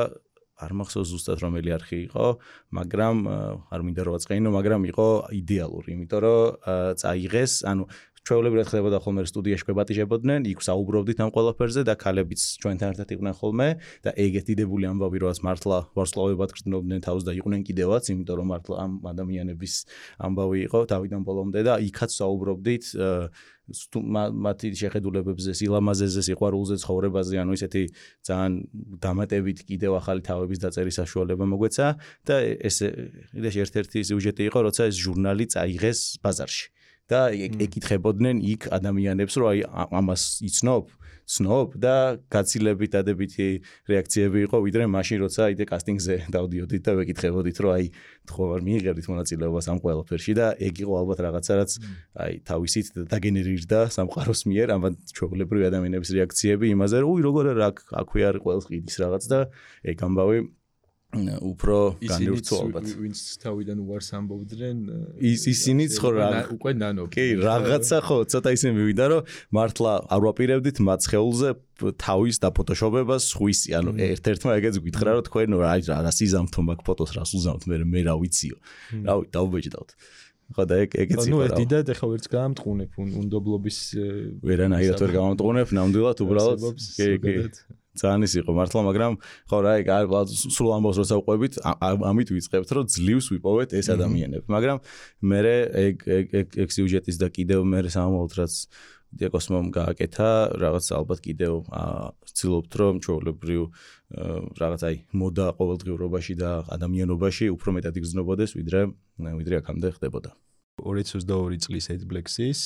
[SPEAKER 3] არ მახსოვს ზუსტად რომელი არხი იყო, მაგრამ არ მინდა რომ ვაწყენინო, მაგრამ იყო იდეალური, იმიტომ რომ წაიღეს, ანუ ჩვეულებრივად ხდებოდა ხოლმე სტუდიაში გვებატიჟებოდნენ, იქ საუბრობდით ამ ყველაფერზე და ქალებიც ჩვენთან ერთად იყვნენ ხოლმე და ეგეთი დიდებული ამბავი როაც მართლა ვარსკვლავებად გრძნობდნენ თავს და იყვნენ კიდევაც, იმიტომ რომ მართლა ამ ადამიანების ამბავი იყო თავიდან ბოლომდე და იქაც საუბრობდით მათი შეხედულებებზე, სილამაზეზე, სიყვარულზე, ცხოვრებაზე, ანუ ისეთი ძალიან დამატებით კიდევ ახალი თავების დაწერის საშუალება მოგვეცა და ეს ერთ-ერთი სიუჟეტი იყო, როცა ეს ჟურნალი წაიღეს ბაზარში. და ეკითხებოდნენ იქ ადამიანებს, რომ აი ამას იცნობ და გაცილებით დადებითი რეაქციები იყო, ვიდრე მაშინ როცა იდე კასტინგზე დავდიოდით და ვეკითხებოდით, რომ აი ხო არ მიიღებდით მონაწილეობას ამ ყველაფერში და ეგ იყო ალბათ რაღაცა, რაც აი თავისით დაგენერირდა სამყაროს მიერ, ამან ჩვეულებრივი ადამიანების რეაქციები იმაზე, რომ უი როგორ აქვე არის ყველს ყიდის რაღაც და ეგ ამბავი უფრო განევრცო ალბათ.
[SPEAKER 1] ვინც თავიდან უარს ამბობდნენ,
[SPEAKER 3] ისინიც ხო
[SPEAKER 1] უკვე ნანობ.
[SPEAKER 3] კი, რაღაცა ხო, ცოტა ისე მივიდა, რომ მართლა არ ვაპირებდით მათ სხეულზე თავის დაფოტოშოპებას სხვისი, ანუ ერთ-ერთმა ეგეც გითხრა, რომ თქვენ რა სიზამთო მაგ ფოტოს რას უზამთ, მე რა ვიციო. რავი, დავბეჭდავთ. ხო და ეგეც იყო.
[SPEAKER 1] ნუ ეს დიდად ახლა ვერც გაამტყუნებ უნდობლობის
[SPEAKER 3] ვერანაირად ვერ გამამტყუნებ, ნამდვილად უბრალოდ კი. ძალიან ის იყო მართლა, მაგრამ ხო რა, ეგ სულ ამბავს როცა ვყვებით, ამით ვიწყებთ, რომ ძლივს ვიპოვეთ ეს ადამიანები. მაგრამ მე ეგ სიუჟეტის და კიდევ მე სამომავლოდ რაც დიაკოსმომ გააკეთა, რაღაც ალბათ კიდევ ვცდილობთ, რომ ჩვეულებრივ რაღაც აი მოდა ყოველდღიურობაში და ადამიანობაში უფრო მეტად იგრძნობოდეს, ვიდრე აქამდე ხდებოდა.
[SPEAKER 1] 2022 წლის AdBlacks-ის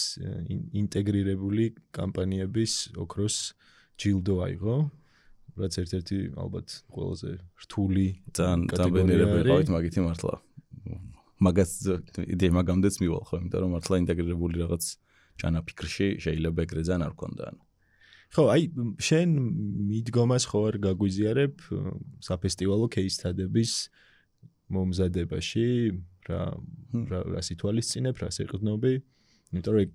[SPEAKER 1] ინტეგრირებული კამპანიების ოქროს ჯილდო აიღო. რაც ერთ-ერთი ალბათ ყველაზე რთული
[SPEAKER 3] კატეგორია ვიყავით მაგითი მართლა. მაგას იდეა მაგამდეც მივალ ხო, იმიტომ რომ მართლა ინტეგრირებული რაღაც ჩანაფიქრში შეიძლება ეგრე ძალიან არ გქონდა.
[SPEAKER 1] ხო, აი შენ მიდგომას ხო არ გაგვიზიარებ საფესტივალო кейსთადების მომზადებაში, რა სიტუალისწინებ, რა სიყრდნობი, იმიტომ რომ ეგ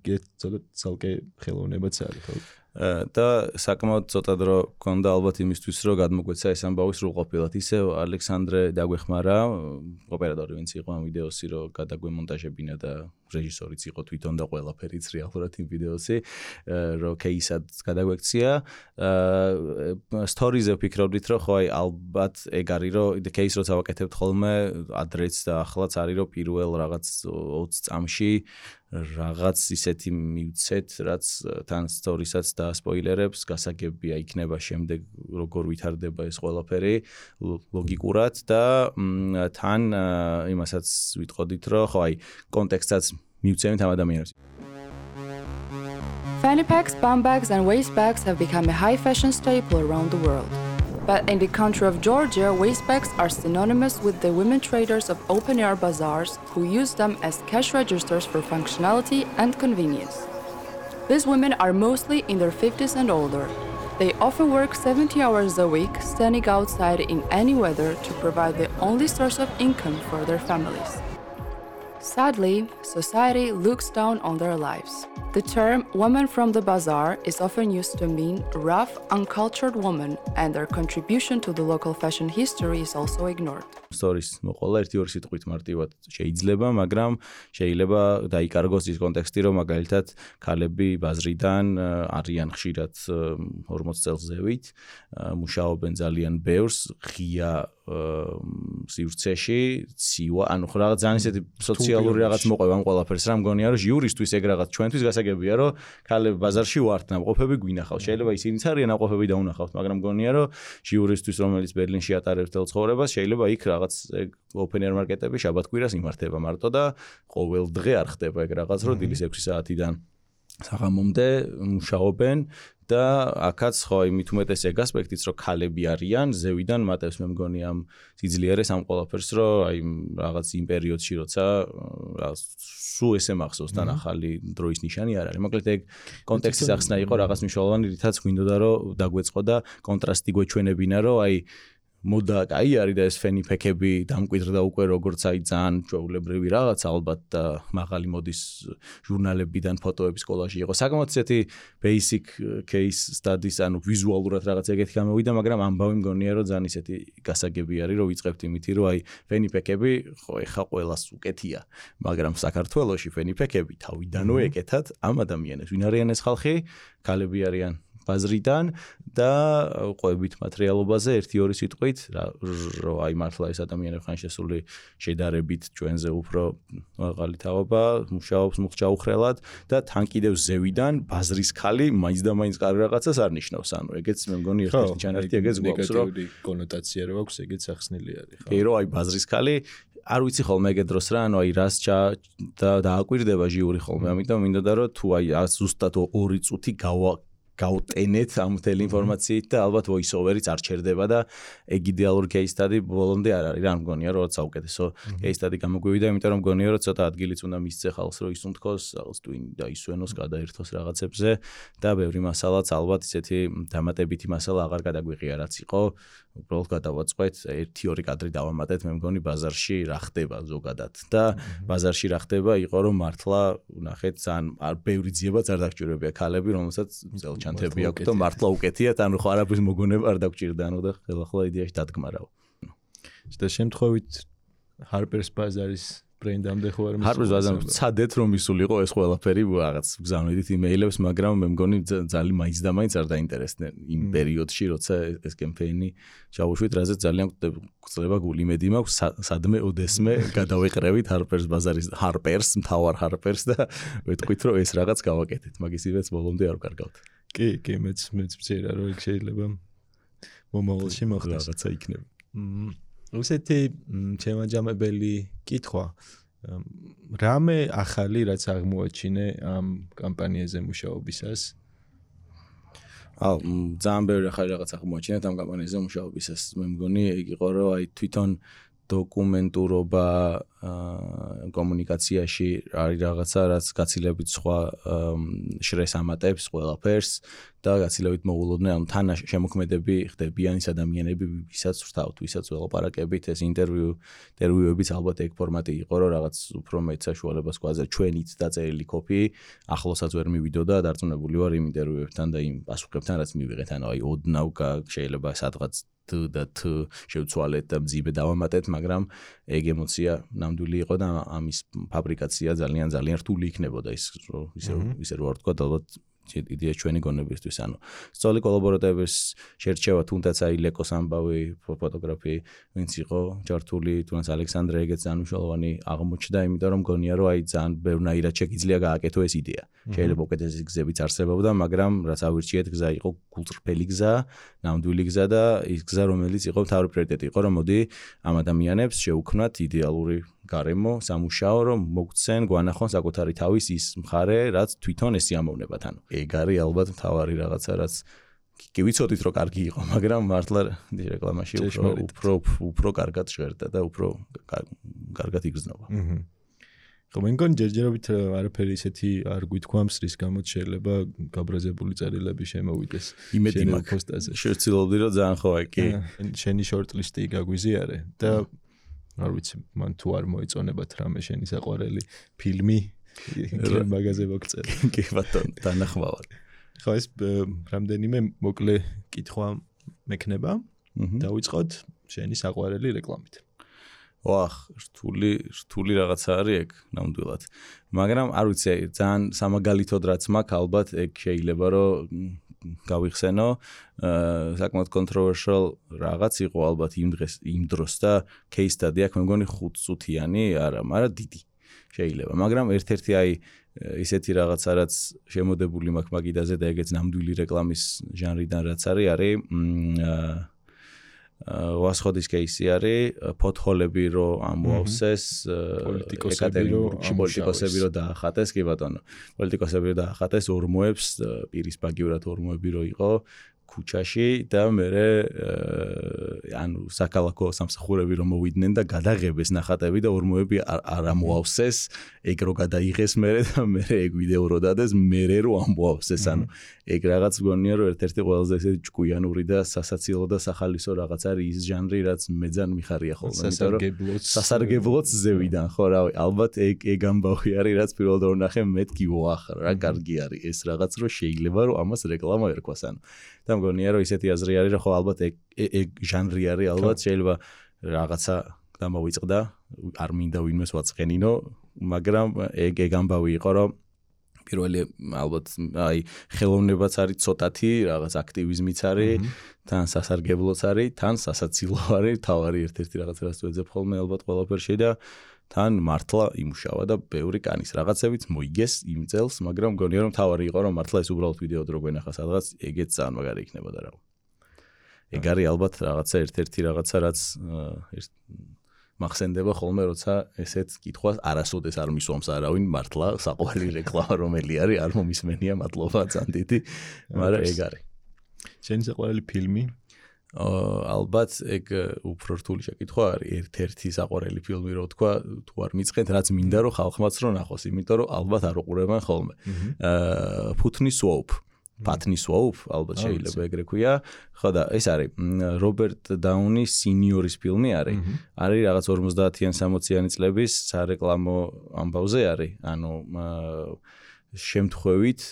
[SPEAKER 1] ცალკე ხელოვნებაც არის ხო?
[SPEAKER 3] და საკმაოდ ცოტა დრო გქონდა ალბათ იმისთვის, რომ გადმოგვეცა ეს ამბავი სრულყოფილად. ისევ ალექსანდრე დაგვეხმარა, ოპერატორი ვინც იყო ამ ვიდეოსი, რომ გადაგვემონტაჟებინა და რეჟისორიც იყო თვითონ და ყველაფერიც რეალურად იმ ვიდეოსი, რომ кейსად გადაგვექცია. სტორიზე ვფიქრობდით, რომ ხო აი ალბათ ეგ არის, რომ кейს როცა ვაკეთებთ ხოლმე, ადრეც და ახლაც არის, რომ პირველ რაღაც 20 წამში რაღაც ისეთი მივცეთ, რაც თან სტორისაც და სპოილერებს გასაგებია იქნება შემდეგ როგორ ვითარდება ეს ყველაფერი ლოგიკურად და თან იმასაც ვიტყოდით, რომ ხო აი კონტექსტსაც მივცემთ ამ ადამიანებს.
[SPEAKER 5] Fanny packs, bum bags and waist bags have become a high fashion staple around the world. But in the country of Georgia, waist bags are synonymous with the women traders of open-air bazaars who use them as cash registers for functionality and convenience. These women are mostly in their 50s and older. They often work 70 hours a week, standing outside in any weather to provide the only source of income for their families. Sadly, society looks down on their lives. The term woman from the bazaar is often used to mean rough, uncultured women, and their contribution to the local fashion history is also ignored.
[SPEAKER 3] Stories მოყოლა 1-2 სიტყვით მარტივად შეიძლება, მაგრამ შეიძლება დაიკარგოს ის კონტექსტი, რომ მაგალითად ქალები ბაზრიდან არიან ხშირად 40 წელს ზევით, მუშაობენ ძალიან ბევრს, ღია სივრცეში, ცივა, ანუ რაღაც ძალიან ისეთი სოციალური რაღაც მოყვება ამ ყველაფერს, რა მგონია, რომ ჟიურისთვის ეგ რაღაც ჩვენთვის გასაგებია, რომ ქალები ბაზარში ვართ, ნამყოფები გვინახავთ. შეიძლება ისინიც არიან ნამყოფები და უნახავთ, მაგრამ მგონია, რომ ჟიურისთვის, რომელიც ბერლინში ატარებს თელ ცხოვრებას, შეიძლება იქ რაღაც open air მარკეტები შაბათ-კვირას იმართება მარტო და ყოველ დღე არ ხდება ეგ რაღაც, რომ დილის 6 საათიდან საღამომდე მუშაობენ და აქაც ხო იმით უმეტეს ეგ ასპექტიც, რომ ქალები არიან, ზევიდან მატებს მე მგონი ამ სიძლიერეს ამ ყველაფერს, რომ აი რაღაც იმ პერიოდში როცა სულ ესე მახსოვს თან ახალი დროის ნიშანი არ არის. მოკლედ ეგ კონტექსტის ახსნა იყო რაღაც მნიშვნელოვანი, რითაც გვინდოდა რომ დაგვეწყო და კონტრასტი გვეჩვენებინა, რომ აი მოდა კაი არის და ეს ფენიფექები დამკვიდრდა უკვე როგორც აი ძალიან ჩვეულებრივი რაღაც ალბათ და მაღალი მოდის ჟურნალებიდან ფოტოების კოლაჟი იყო. საკმაოდ ისეთი basic case studies, ანუ ვიზუალურად რაღაც ეგეთი გამოვიდა, მაგრამ ამბავი მგონია რომ ძალიან ისეთი გასაგები არის, რომ ვიწყებთ იმითი, რომ აი ფენიფექები ხო ეხა ყველას უკეთია, მაგრამ საქართველოში ფენიფექები თავიდანვე ეკეთათ ამ ადამიანებს. ვინ არიან ეს ხალხი? ქალები არიან ბაზრიდან და ყვებით მატერიალობაზე 1-2 სიტყვით, რომ აი მართლა ეს ადამიანები ხან შესული შედარებით ჩვენზე უფრო მაღალი თაობა, მუშაობს მუხჯაუხრელად და თან კიდევ ზევიდან ბაზრის ქალი მაინც და მაინც კარგი რაღაცას არ ნიშნავს. ანუ ეგეც მე მგონი ერთ-ერთი ჩანართი ეგეც გვაქვს, რომ
[SPEAKER 1] ნეგატიური კონოტაცია რო აქვს, ეგეც ახსნილი არის, ხო?
[SPEAKER 3] კი, რომ აი ბაზრის ქალი არ ვიცი ხოლმე ეგ დროს რა, ანუ აი რას და დააკვირდება ჟიური ხოლმე, ამიტომ მინდოდა რომ თუ აი ზუსტად 2 წუთი გავტენეთ ამ მთელი ინფორმაციით და ალბათ voice over-იც არ ჩერდება და ეგ იდეალური case study ბოლომდე არ არის. რა მგონია რომ საუკეთესო case study გამოგვივიდა, იმიტომ რომ მგონია რომ ცოტა ადგილიც უნდა მისცე ხალხს, რომ ისუნთქოს, რაღაც თუ დაისვენოს, გადაერთოს რაღაცებზე და ბევრი მასალაც ალბათ ისეთი დამატებითი მასალა აღარ გადაგვიღია, რაც იყო. უბრალოდ გადავაწყვეთ 1-2 კადრი დავამატეთ, მე მგონი ბაზარში რა ხდება ზოგადად და ბაზარში რა ხდება იყო რომ მართლა ნახეთ ძალიან ბევრი ძიებაც არ დაგჭირებია ქალები, რომელსაც წელჩანთები აქვს და მართლა უკეთიათ, ანუ ხო არაფრის მოგონება არ დაგჭირდა, ანუ და ხელახლა იდეაში დადგმარავ.
[SPEAKER 1] და შემთხვევით Harper's Bazaar-ის ბრენდამდე ხო არ მისულა?
[SPEAKER 3] Harper's Bazaar-ს ცადეთ რომ მისულიყო ეს ყველაფერი, რაღაც გზავნიდით იმეილებს, მაგრამ მე მგონი ძალიან მაინც და მაინც არ დაინტერესდნენ იმ პერიოდში, როცა ეს კემპეინი ჩავუშვით, რაზეც ძალიან გვწლება გული. იმედი მაქვს სადმე ოდესმე გადავეყრევით Harper's Bazaar-ის მთავარ Harper's და ვეთქვით რომ ეს რაღაც გავაკეთეთ, მაგის ივეც ბოლომდე არ ვკარგავთ.
[SPEAKER 1] კი, მეც მცირა რომ ეგ შეიძლება მომავალში მოხდეს.
[SPEAKER 3] რაღაცა იქნება.
[SPEAKER 1] უსეთი შემაჯამებელი კითხვა. რამე ახალი რაც აღმოაჩინე ამ კამპანიაზე მუშაობისას?
[SPEAKER 3] ძალიან ბევრი ახალი რაღაც აღმოაჩინეთ ამ კამპანიაზე მუშაობისას. მე მგონი ეგ იყო რომ აი თვითონ დოკუმენტურობა კომუნიკაციაში არის რაღაცა, რაც გაცილებით სხვა შრეს ამატებს ყველაფერს და გაცილებით მოულოდნელ ამ თან შემოქმედები ხდებიან ის ადამიანები, ვისაც ვრთავთ, ვისაც ველაპარაკებით, ეს ინტერვიუებიც ალბათ ეგ ფორმატი იყო, რომ რაღაც უფრო მეტ საშუალებას გვაძლევს ჩვენით დაწერილი კოპი, ახლოსაც ვერ მივიდოდა, დარწმუნებული ვარ იმ ინტერვიუებთან და იმ პასუხებთან, რაც მივიღეთ, ანუ აი ოდნავ შეიძლება სადღაც და შევცვალეთ და მძიმე დავამატეთ, მაგრამ ეგ ემოცია ნამდვილი იყო და ამის ფაბრიკაცია ძალიან რთული იქნებოდა ისე რო არ თქვა, ალბათ იდეა ჩვენი გონებისთვის, ანუ სწორი კოლაბორატორების შერჩევა, თუნდაც აი ლეკოს ამბავი ფოტოგრაფი, ვინც იყო ჯართული, თუნდაც ალექსანდრე ეგეც ძალიან მნიშვნელოვანი აღმოჩნდა, იმიტომ რომ მგონია რომ აი ძალიან ბევრნაირად შეგიძლია გააკეთო ეს იდეა. შეიძლება უკეთესი გზებიც არსებობდა, მაგრამ რაც ავირჩიეთ, გზა იყო გულწრფელი გზა, ნამდვილი გზა და ის გზა, რომელიც იყო მთავარი პრიორიტეტი იყო, რომ მოდი ამ ადამიანებს შევუქმნათ იდეალური გარემო, სამუშაო, რომ მოგცენ, გვანახონ საკუთარი თავის ის მხარე, რაც თვითონ ეს იამოვნებათ. ანუ ეგ არის ალბათ მთავარი რაღაცა, რაც კი ვიცოდით რომ კარგი იყო, მაგრამ მართლა რეკლამაში უფრო კარგად ჟღერდა და უფრო კარგად იგრძნობა.
[SPEAKER 1] ხო, მე მგონი ჯერჯერობით არაფერი ისეთი არ გვითქვამს, რის გამოც შეიძლება გაბრაზებული წერილები შემოვიდეს
[SPEAKER 3] შენი პოსტაზე. შევცილობდი რომ ძალიან ხო კი.
[SPEAKER 1] შენი შორტლისტი გაგვიზიარე და არ ვიცი, მან თუ არ მოეწონებათ რამე შენი საყვარელი ფილმი გრემ მაგაზე მოგწერე.
[SPEAKER 3] კი ბატონო, დანახმავად.
[SPEAKER 1] ხო ეს რამდენიმე მოკლე კითხვა მექნება. დავიწყოთ შენი საყვარელი რეკლამით.
[SPEAKER 3] ვახ, რთული რაღაცა არის ეგ ნამდვილად. მაგრამ არ ვიცი, ძალიან სამაგალითოდ რაც მაქვს, ალბათ ეგ შეიძლება რომ გავიხსენო, საკმაოდ controversial რაღაც იყო ალბათ იმ დროს და case study აქვს, მე მგონი 5 წუთიანი, არა, მაგრამ დიდი შეიძლება. მაგრამ ერთ-ერთი აი ისეთი რაღაცა რაც შემოდებული მაქვს მაგიდაზე და ეგეც ნამდვილი რეკლამის ჟანრიდან რაც არის ვასხოდის кейსი არის ფოთოლები რო ამოავსეს პოლიტიკოსები რო დაახატეს კი ბატონო პოლიტიკოსები რო დაახატეს ორმოებს პირისპაგიურად ორმოები რო იყო ქუჩაში და მერე ანუ საქალაქო სამსახურები რომ მოვიდნენ და გადაღებეს ნახატები და ორმოები არ ამოავსეს ეგ რო გადაიღეს მერე და მერე ეგ ვიდეო რო დადეს მერე რო ამოავსეს ანუ ეგ რაღაც გონია რომ ერთ-ერთი ყველაზე ესეთი ჭკვიანური და სასაცილო და სახალისო რაღაც არის ის ჟანრი რაც მე ძალიან მიხარია ხოლმე იმიტომ რომ სასარგებლოც ზევიდან ხო რავი ალბათ ეგ ამბავი არის რაც პირველად რო ნახე მეთქი ვახ რა კარგი არის ეს რაღაც რო შეიძლება რომ ამას რეკლამა ერქვას ანუ და მგონია რომ ისეთი აზრი არის რომ ხო ალბათ ეგ ჟანრი არის ალბათ შეიძლება რაღაცა დამოვიწყდა არ მინდა ვინმეს ვაწყენინო მაგრამ ეგ ამბავი იყო რომ პირველი ალბათ აი ხელოვნებაც არის ცოტათი რაღაც აქტივიზმიც არის თან სასარგებლოც არის თან სასაცილო არის თავარი ერთ-ერთი რაღაცა რაც ვეძებ ხოლმე ალბათ ყველაფერში და თან მართლა იმუშავა და ბევრი კანის რაღაცებიც მოიგეს იმ წელს მაგრამ მგონია რომ თავარი იყო რომ მართლა ეს უბრალოდ ვიდეო დრო გვენახა სადღაც ეგეც ძალიან მაგარი იქნებოდა რა ეგ არის ალბათ რაღაცა ერთ-ერთი რაღაცა რაც მახსენდება ხოლმე როცა ესეთ კითხვას არასოდეს არ მისვამს არავინ მართლა საყვარელი რეკლამა რომელი არის არ მომისმენია მადლობა ძალიან დიდი მაგრამ ეგ არის
[SPEAKER 1] შენი საყვარელი ფილმი
[SPEAKER 3] ალბათ ეგ უფრო რთული შეკითხვა არის ერთ-ერთი საყვარელი ფილმი რო თქვა თუ არ მიწყენთ რაც მინდა რომ ხალხმაც რო ნახოს იმიტომ რომ ალბათ არ უყურებენ ხოლმე ფუთნის ვოუფ პათნის ვოუფ ალბათ შეიძლება ეგრე ქვია ხო და ეს არის რობერტ დაუნის სინიორის ფილმი არის რაღაც 50-იან 60-იანი წლების სარეკლამო ამბავზე არის ანუ შემთხვევით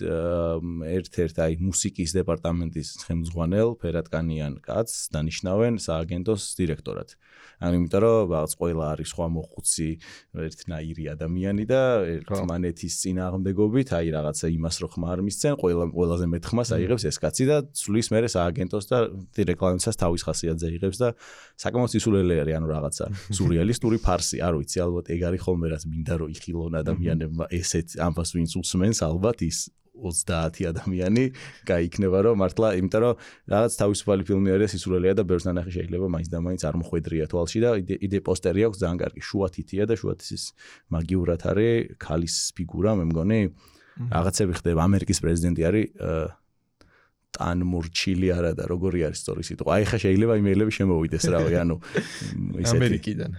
[SPEAKER 3] ერთ-ერთ აი მუსიკის დეპარტამენტის ხელმძღვანელ ფერატკანიან კაცს დანიშნავენ სააგენტოს დირექტორად. ანუ იმიტომ რომ რაღაც ყველა არის სხვა მოხუცი ერთნაირი ადამიანი და ერთმანეთის წინააღმდეგობით აი რაღაცა იმას რო ხმა არ მისცენ ყველაზე მეტ ხმას აიღებს ეს კაცი და ცვლის მერე სააგენტოს და რეკლამისას თავის ხასიათზე იღებს და საკმაოდ სისულელე არის ანუ რაღაცა სურეალისტური ფარსი არ ვიცი ალბათ ეგ არის ხოლმე რაც მინდა რომ იხილონ ადამიანებმა ესეთ ამბავს ვინც უსმენს ალბათ ის 30 ადამიანი გაიქნება რომ მართლა იმიტომ რომ რაღაც თავისუფალი ფილმი არის სისულელეა და ბევრს ნანახი შეიძლება მაინც და მაინც არ მოხვედრია თვალში და იდე პოსტერი აქვს ძალიან კარგი შუათითია და შუათის მაგიურად არის ქალის ფიგურა მე მგონი რაღაცები ხდება ამერიკის პრეზიდენტი არის ტანმურჩილი არა და როგორი არის სწორი სიტყვა. აი ხა შეიძლება იმეილები შემოვიდეს რავი, ანუ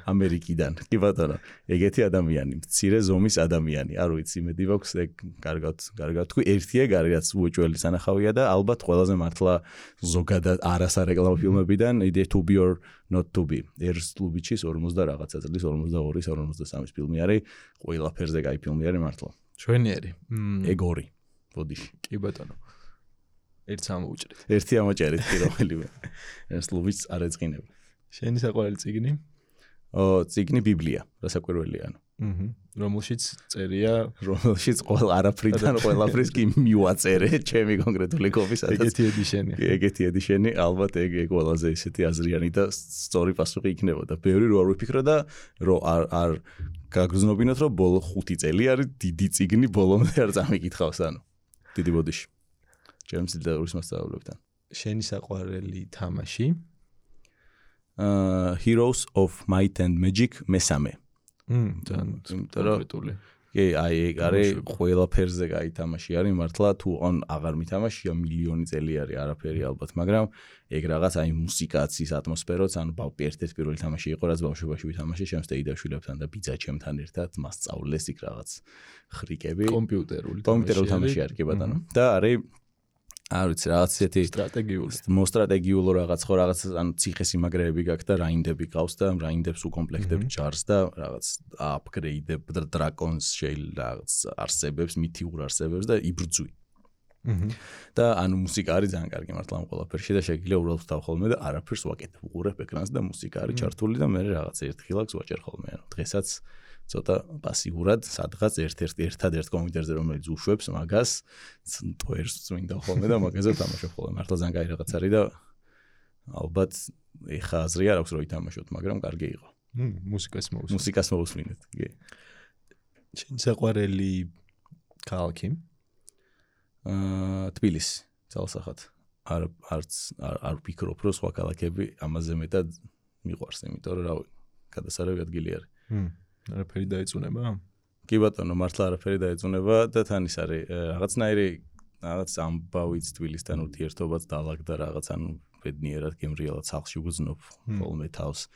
[SPEAKER 3] ამერიკიდან. კი ბატონო, ეგეთი ადამიანი, მცირე ზომის ადამიანი. არ ვიცი, იმედი მაქვს ეგ კარგად თქვი, ერთი ეგ არის რაც უეჭველი სანახავია და ალბათ ყველაზე მართლა ზოგადად არასარეკლამო ფილმებიდან იდე to be or not to be. ერს კლუბიჩის 40 რაღაცა წლის 42-ის 53-ის ფილმი არის, ყველაფერზე კაი ფილმი არის მართლა.
[SPEAKER 1] ჩვენიერი.
[SPEAKER 3] ეგ ორი. ბოდიში.
[SPEAKER 1] კი ბატონო. ერთს ამოუჭრით.
[SPEAKER 3] ერთი ამოჭერით კი რომელიმე. ეს ლუბიც არ ეწყინება.
[SPEAKER 1] შენი საყვარელი წიგნი?
[SPEAKER 3] წიგნი ბიბლია, რასაკვირველია ანუ.
[SPEAKER 1] რომელშიც წერია,
[SPEAKER 3] რომელშიც არაფრიდან ყველაფრის კი მივაწერე, ჩემი კონკრეტული კოპისაც. ეგეთი ედიშენი, ალბათ ეგ ყველაზე ისეთი აზრიანი და სწორი პასუხი იქნებოდა. ბევრი რო არ ვიფიქრო და რო არ გაგრძნობინოთ რომ ბოლო 5 წელი არის დიდი წიგნი ბოლომდე არ წამიკითხავს ანუ. დიდი ბოდიში. ჩემს ლიტერატურის მასწავლებლებთან.
[SPEAKER 1] შენი საყვარელი თამაში?
[SPEAKER 3] Heroes of Might and Magic მესამე.
[SPEAKER 1] კონკრეტული.
[SPEAKER 3] კი, აი ეგ არის ყველაფერზე კაი თამაში არის მართლა თუ ან აღარ მითამაშია მილიონი წელი არის არაფერი ალბათ, მაგრამ ეგ რაღაც აი მუსიკაც ის ატმოსფეროც ანუ ერთ-ერთი პირველი თამაში იყო რაც ბავშვობაში ვითამაშე ჩემს დეიდაშვილებთან და ბიძაჩემთან ერთად მასწავლეს იქ რაღაც ხრიკები.
[SPEAKER 1] კომპიუტერული
[SPEAKER 3] თამაში არის კი ბატონო. და არის არ ვიცი, რაღაც ისეთი მოსტრატეგიულო რაღაც ხო რაღაც ანუ ციხესიმაგრეები გაქვს და რაინდები ყავს და რაინდებს უკომპლექტებ ჯარს და რაღაც აპგრეიდებ დრაკონს შეიძლება რაღაც არსებებს, მითიურ არსებებს და იბრძვი. და ანუ მუსიკა არის ძალიან კარგი მართლა ამ ყველაფერში და შეგიძლია უბრალოდ ვთავ ხოლმე და არაფერს ვაკეთებ, უყურებ ეკრანს და მუსიკა არის ჩართული და მე რაღაც ერთხილაკს ვაჭერ ხოლმე. ანუ დღესაც ცოტა პასიურად სადღაც ერთადერთ კომპიუტერზე რომელიც უშვებს მაგას ტვერს წმინდა ხოლმე და მაგაზე თამაშობ ხოლმე. მართლა ძალიან კაი რაღაც არის და ალბათ ეხა აზრი არ აქვს რომ ითამაშოთ, მაგრამ კარგი იყო. მუსიკას მოვუსმინეთ. კი.
[SPEAKER 1] შენ საყვარელი ქალაქი?
[SPEAKER 3] თბილისი, ძალსახად. არ ვფიქრობ რომ სხვა ქალაქები ამაზე მეტად მიყვარს, იმიტომ რომ რავი, გადასარევი ადგილი არის.
[SPEAKER 1] არაფერი დაეწუნება?
[SPEAKER 3] კი ბატონო, მართლა არაფერი დაეწუნება და თან ის არის რაღაცნაირი რაღაც ამბავიც თბილისთან ურთიერთობაც დაალაგდა რაღაც ანუ ბედნიერად გემრიელად სახლში ვგზნობ ხოლმე თავს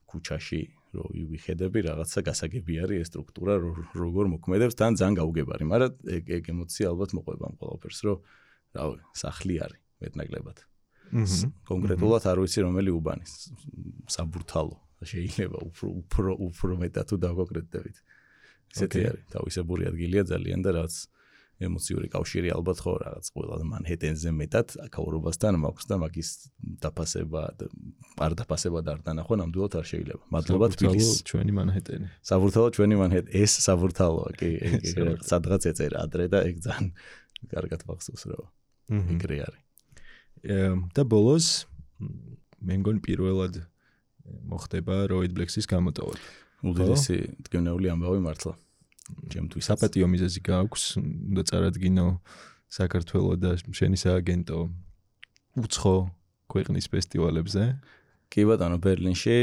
[SPEAKER 3] ქუჩაში რო ვიხედები რაღაცა გასაგები არის ეს სტრუქტურა როგორ მოქმედებს თან ძალიან გაუგებარი, მაგრამ ეგ ემოცია ალბათ მოყვება ამ ყველაფერს რომ რავი, სახლი არის მეტნაკლებად. კონკრეტულად არ ვიცი რომელი უბანი, საბურთალო შეიძლება უფრო მეტად თუ დავკონკრეტდებით. ისეთი არის, თავისებური ადგილია ძალიან და რაც ემოციური კავშირი ალბათ ხო რაღაც ყველა მანჰეტენზე მეტად აქაურობასთან მაქვს და მაგის დაფასება არ დანახვა ნამდვილად არ შეიძლება. მადლობა თბილისს.
[SPEAKER 1] ჩვენი მანჰეტენი.
[SPEAKER 3] საბურთალო ჩვენი მანჰეტენი. ეს საბურთალოა, კი, სადღაც ეწერა ადრე და ეგ ძალიან კარგად მახსოვს რა. ეგრე არის.
[SPEAKER 1] და ბოლოს მე მგონი პირველად მოხდება როიდ ბლექსის გამოტოვა.
[SPEAKER 3] უდიდესი მტკივნეული ამბავი მართლა. ჩემთვის
[SPEAKER 1] საპატიო მიზეზი გაქვს, უნდა წარადგინო საქართველოს და შენი სააგენტო უცხო ქვეყნის ფესტივალებზე.
[SPEAKER 3] კი ბატონო, ბერლინში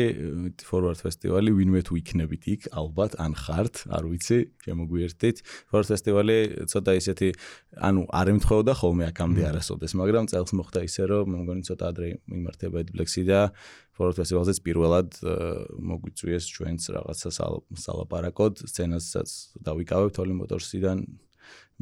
[SPEAKER 3] Forward ფესტივალი ვინმე თუ იქნებით იქ, ალბათ ან ხართ, არ ვიცი, შემოგვიერთდით. Forward ფესტივალი ცოტა ისეთი, ანუ არ ემთხოვდა ხოლმე აქამდე არასოდეს, მაგრამ წელს მოხდა ისე, რომ მე მგონი ცოტა ადრე მიმართება Edblex-ი და Forward ფესტივალზეც პირველად მოგვიწვიეს ჩვენც რაღაცა სალაპარაკოდ, სცენასაც დავიკავებთ Holy Motors-იდან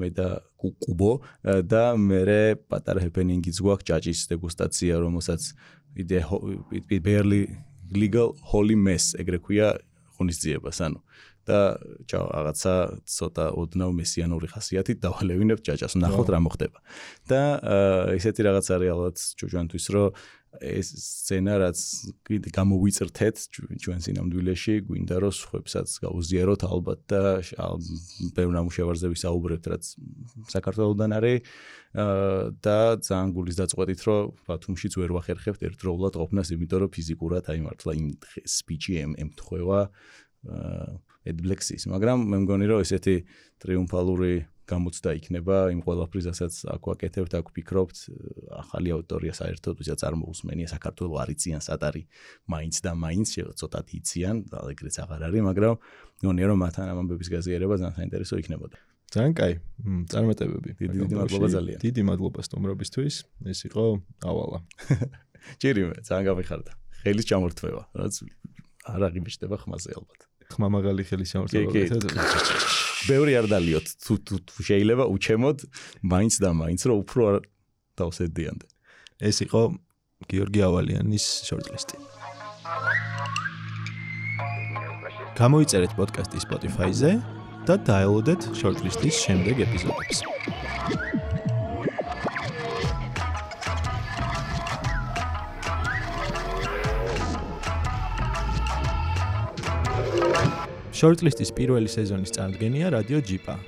[SPEAKER 3] მე და კუბო და მე პატარა ჰეპენინგიც გვაქვს ჭაჭის დეგუსტაცია, რომელსაც barely legal holy mess ეგრე ქვია ღონისძიებას, ანუ და რაღაცა ცოტა ოდნავ მესიანური ხასიათით დავალევინებ ჭაჭას, ნახოთ რა მოხდება. და ისეთი რაღაც არის ალბათ ჩვენთვის, რომ ეს სცენა რაც გამოვიწრთეთ ჩვენ სინამდვილეში, გვინდა რომ სხვებსაც გაუზიაროთ ალბათ და ბევრ ნამუშევარზე ვისაუბრებთ, რაც საქართველოსდან არის და ძალიან გულის დაწყვეტით, რომ ბათუმშიც ვერ ვახერხებთ ერთდროულად ყოფნას, იმიტომ რომ ფიზიკურად აი მართლა იმ სპიჩი ემთხვევა Edblex-ის, მაგრამ მე მგონი რომ ესეთი ტრიუმფალური გამოცდა იქნება იმ ყველაფრისასაც აქ ვაკეთებთ, აქ ვფიქრობთ, ახალი აუდიტორია საერთოდ ვისაც არ მოусმენია საქართველოს არიციან სატარი მაინც და მაინც ცოტათ იციან, და ეგრეც აღარ არის, მაგრამ მგონია რომ მათთან ამ ამბების გაზიარება ძალიან საინტერესო იქნებოდა.
[SPEAKER 1] ძალიან კაი, წარმატებები.
[SPEAKER 3] დიდი მადლობა ძალიან.
[SPEAKER 1] დიდი მადლობა სტუმრობისთვის. ეს იყო ავალა.
[SPEAKER 3] ჭირიმე, ძალიან გამიხარდა. ხელის ჩამორთმევა, რაც არ აღიმეშტება ხმაზე ალბათ.
[SPEAKER 1] ხმა მაღალი ხელის ჩამორთმევა.
[SPEAKER 3] ბევრი არ დალიოთ, თუ შეიძლება უჩემოდ მაინც და მაინც რომ უფრო არ დავსედიანდე.
[SPEAKER 1] ეს იყო გიორგი ავალიანის შორტლისტი. გამოიწერეთ პოდკასტი Spotify-ზე და დაელოდეთ შორტლისტის შემდეგ ეპიზოდებს. შორტლისტის პირველი სეზონის წარდგენია რადიო ჯიპა.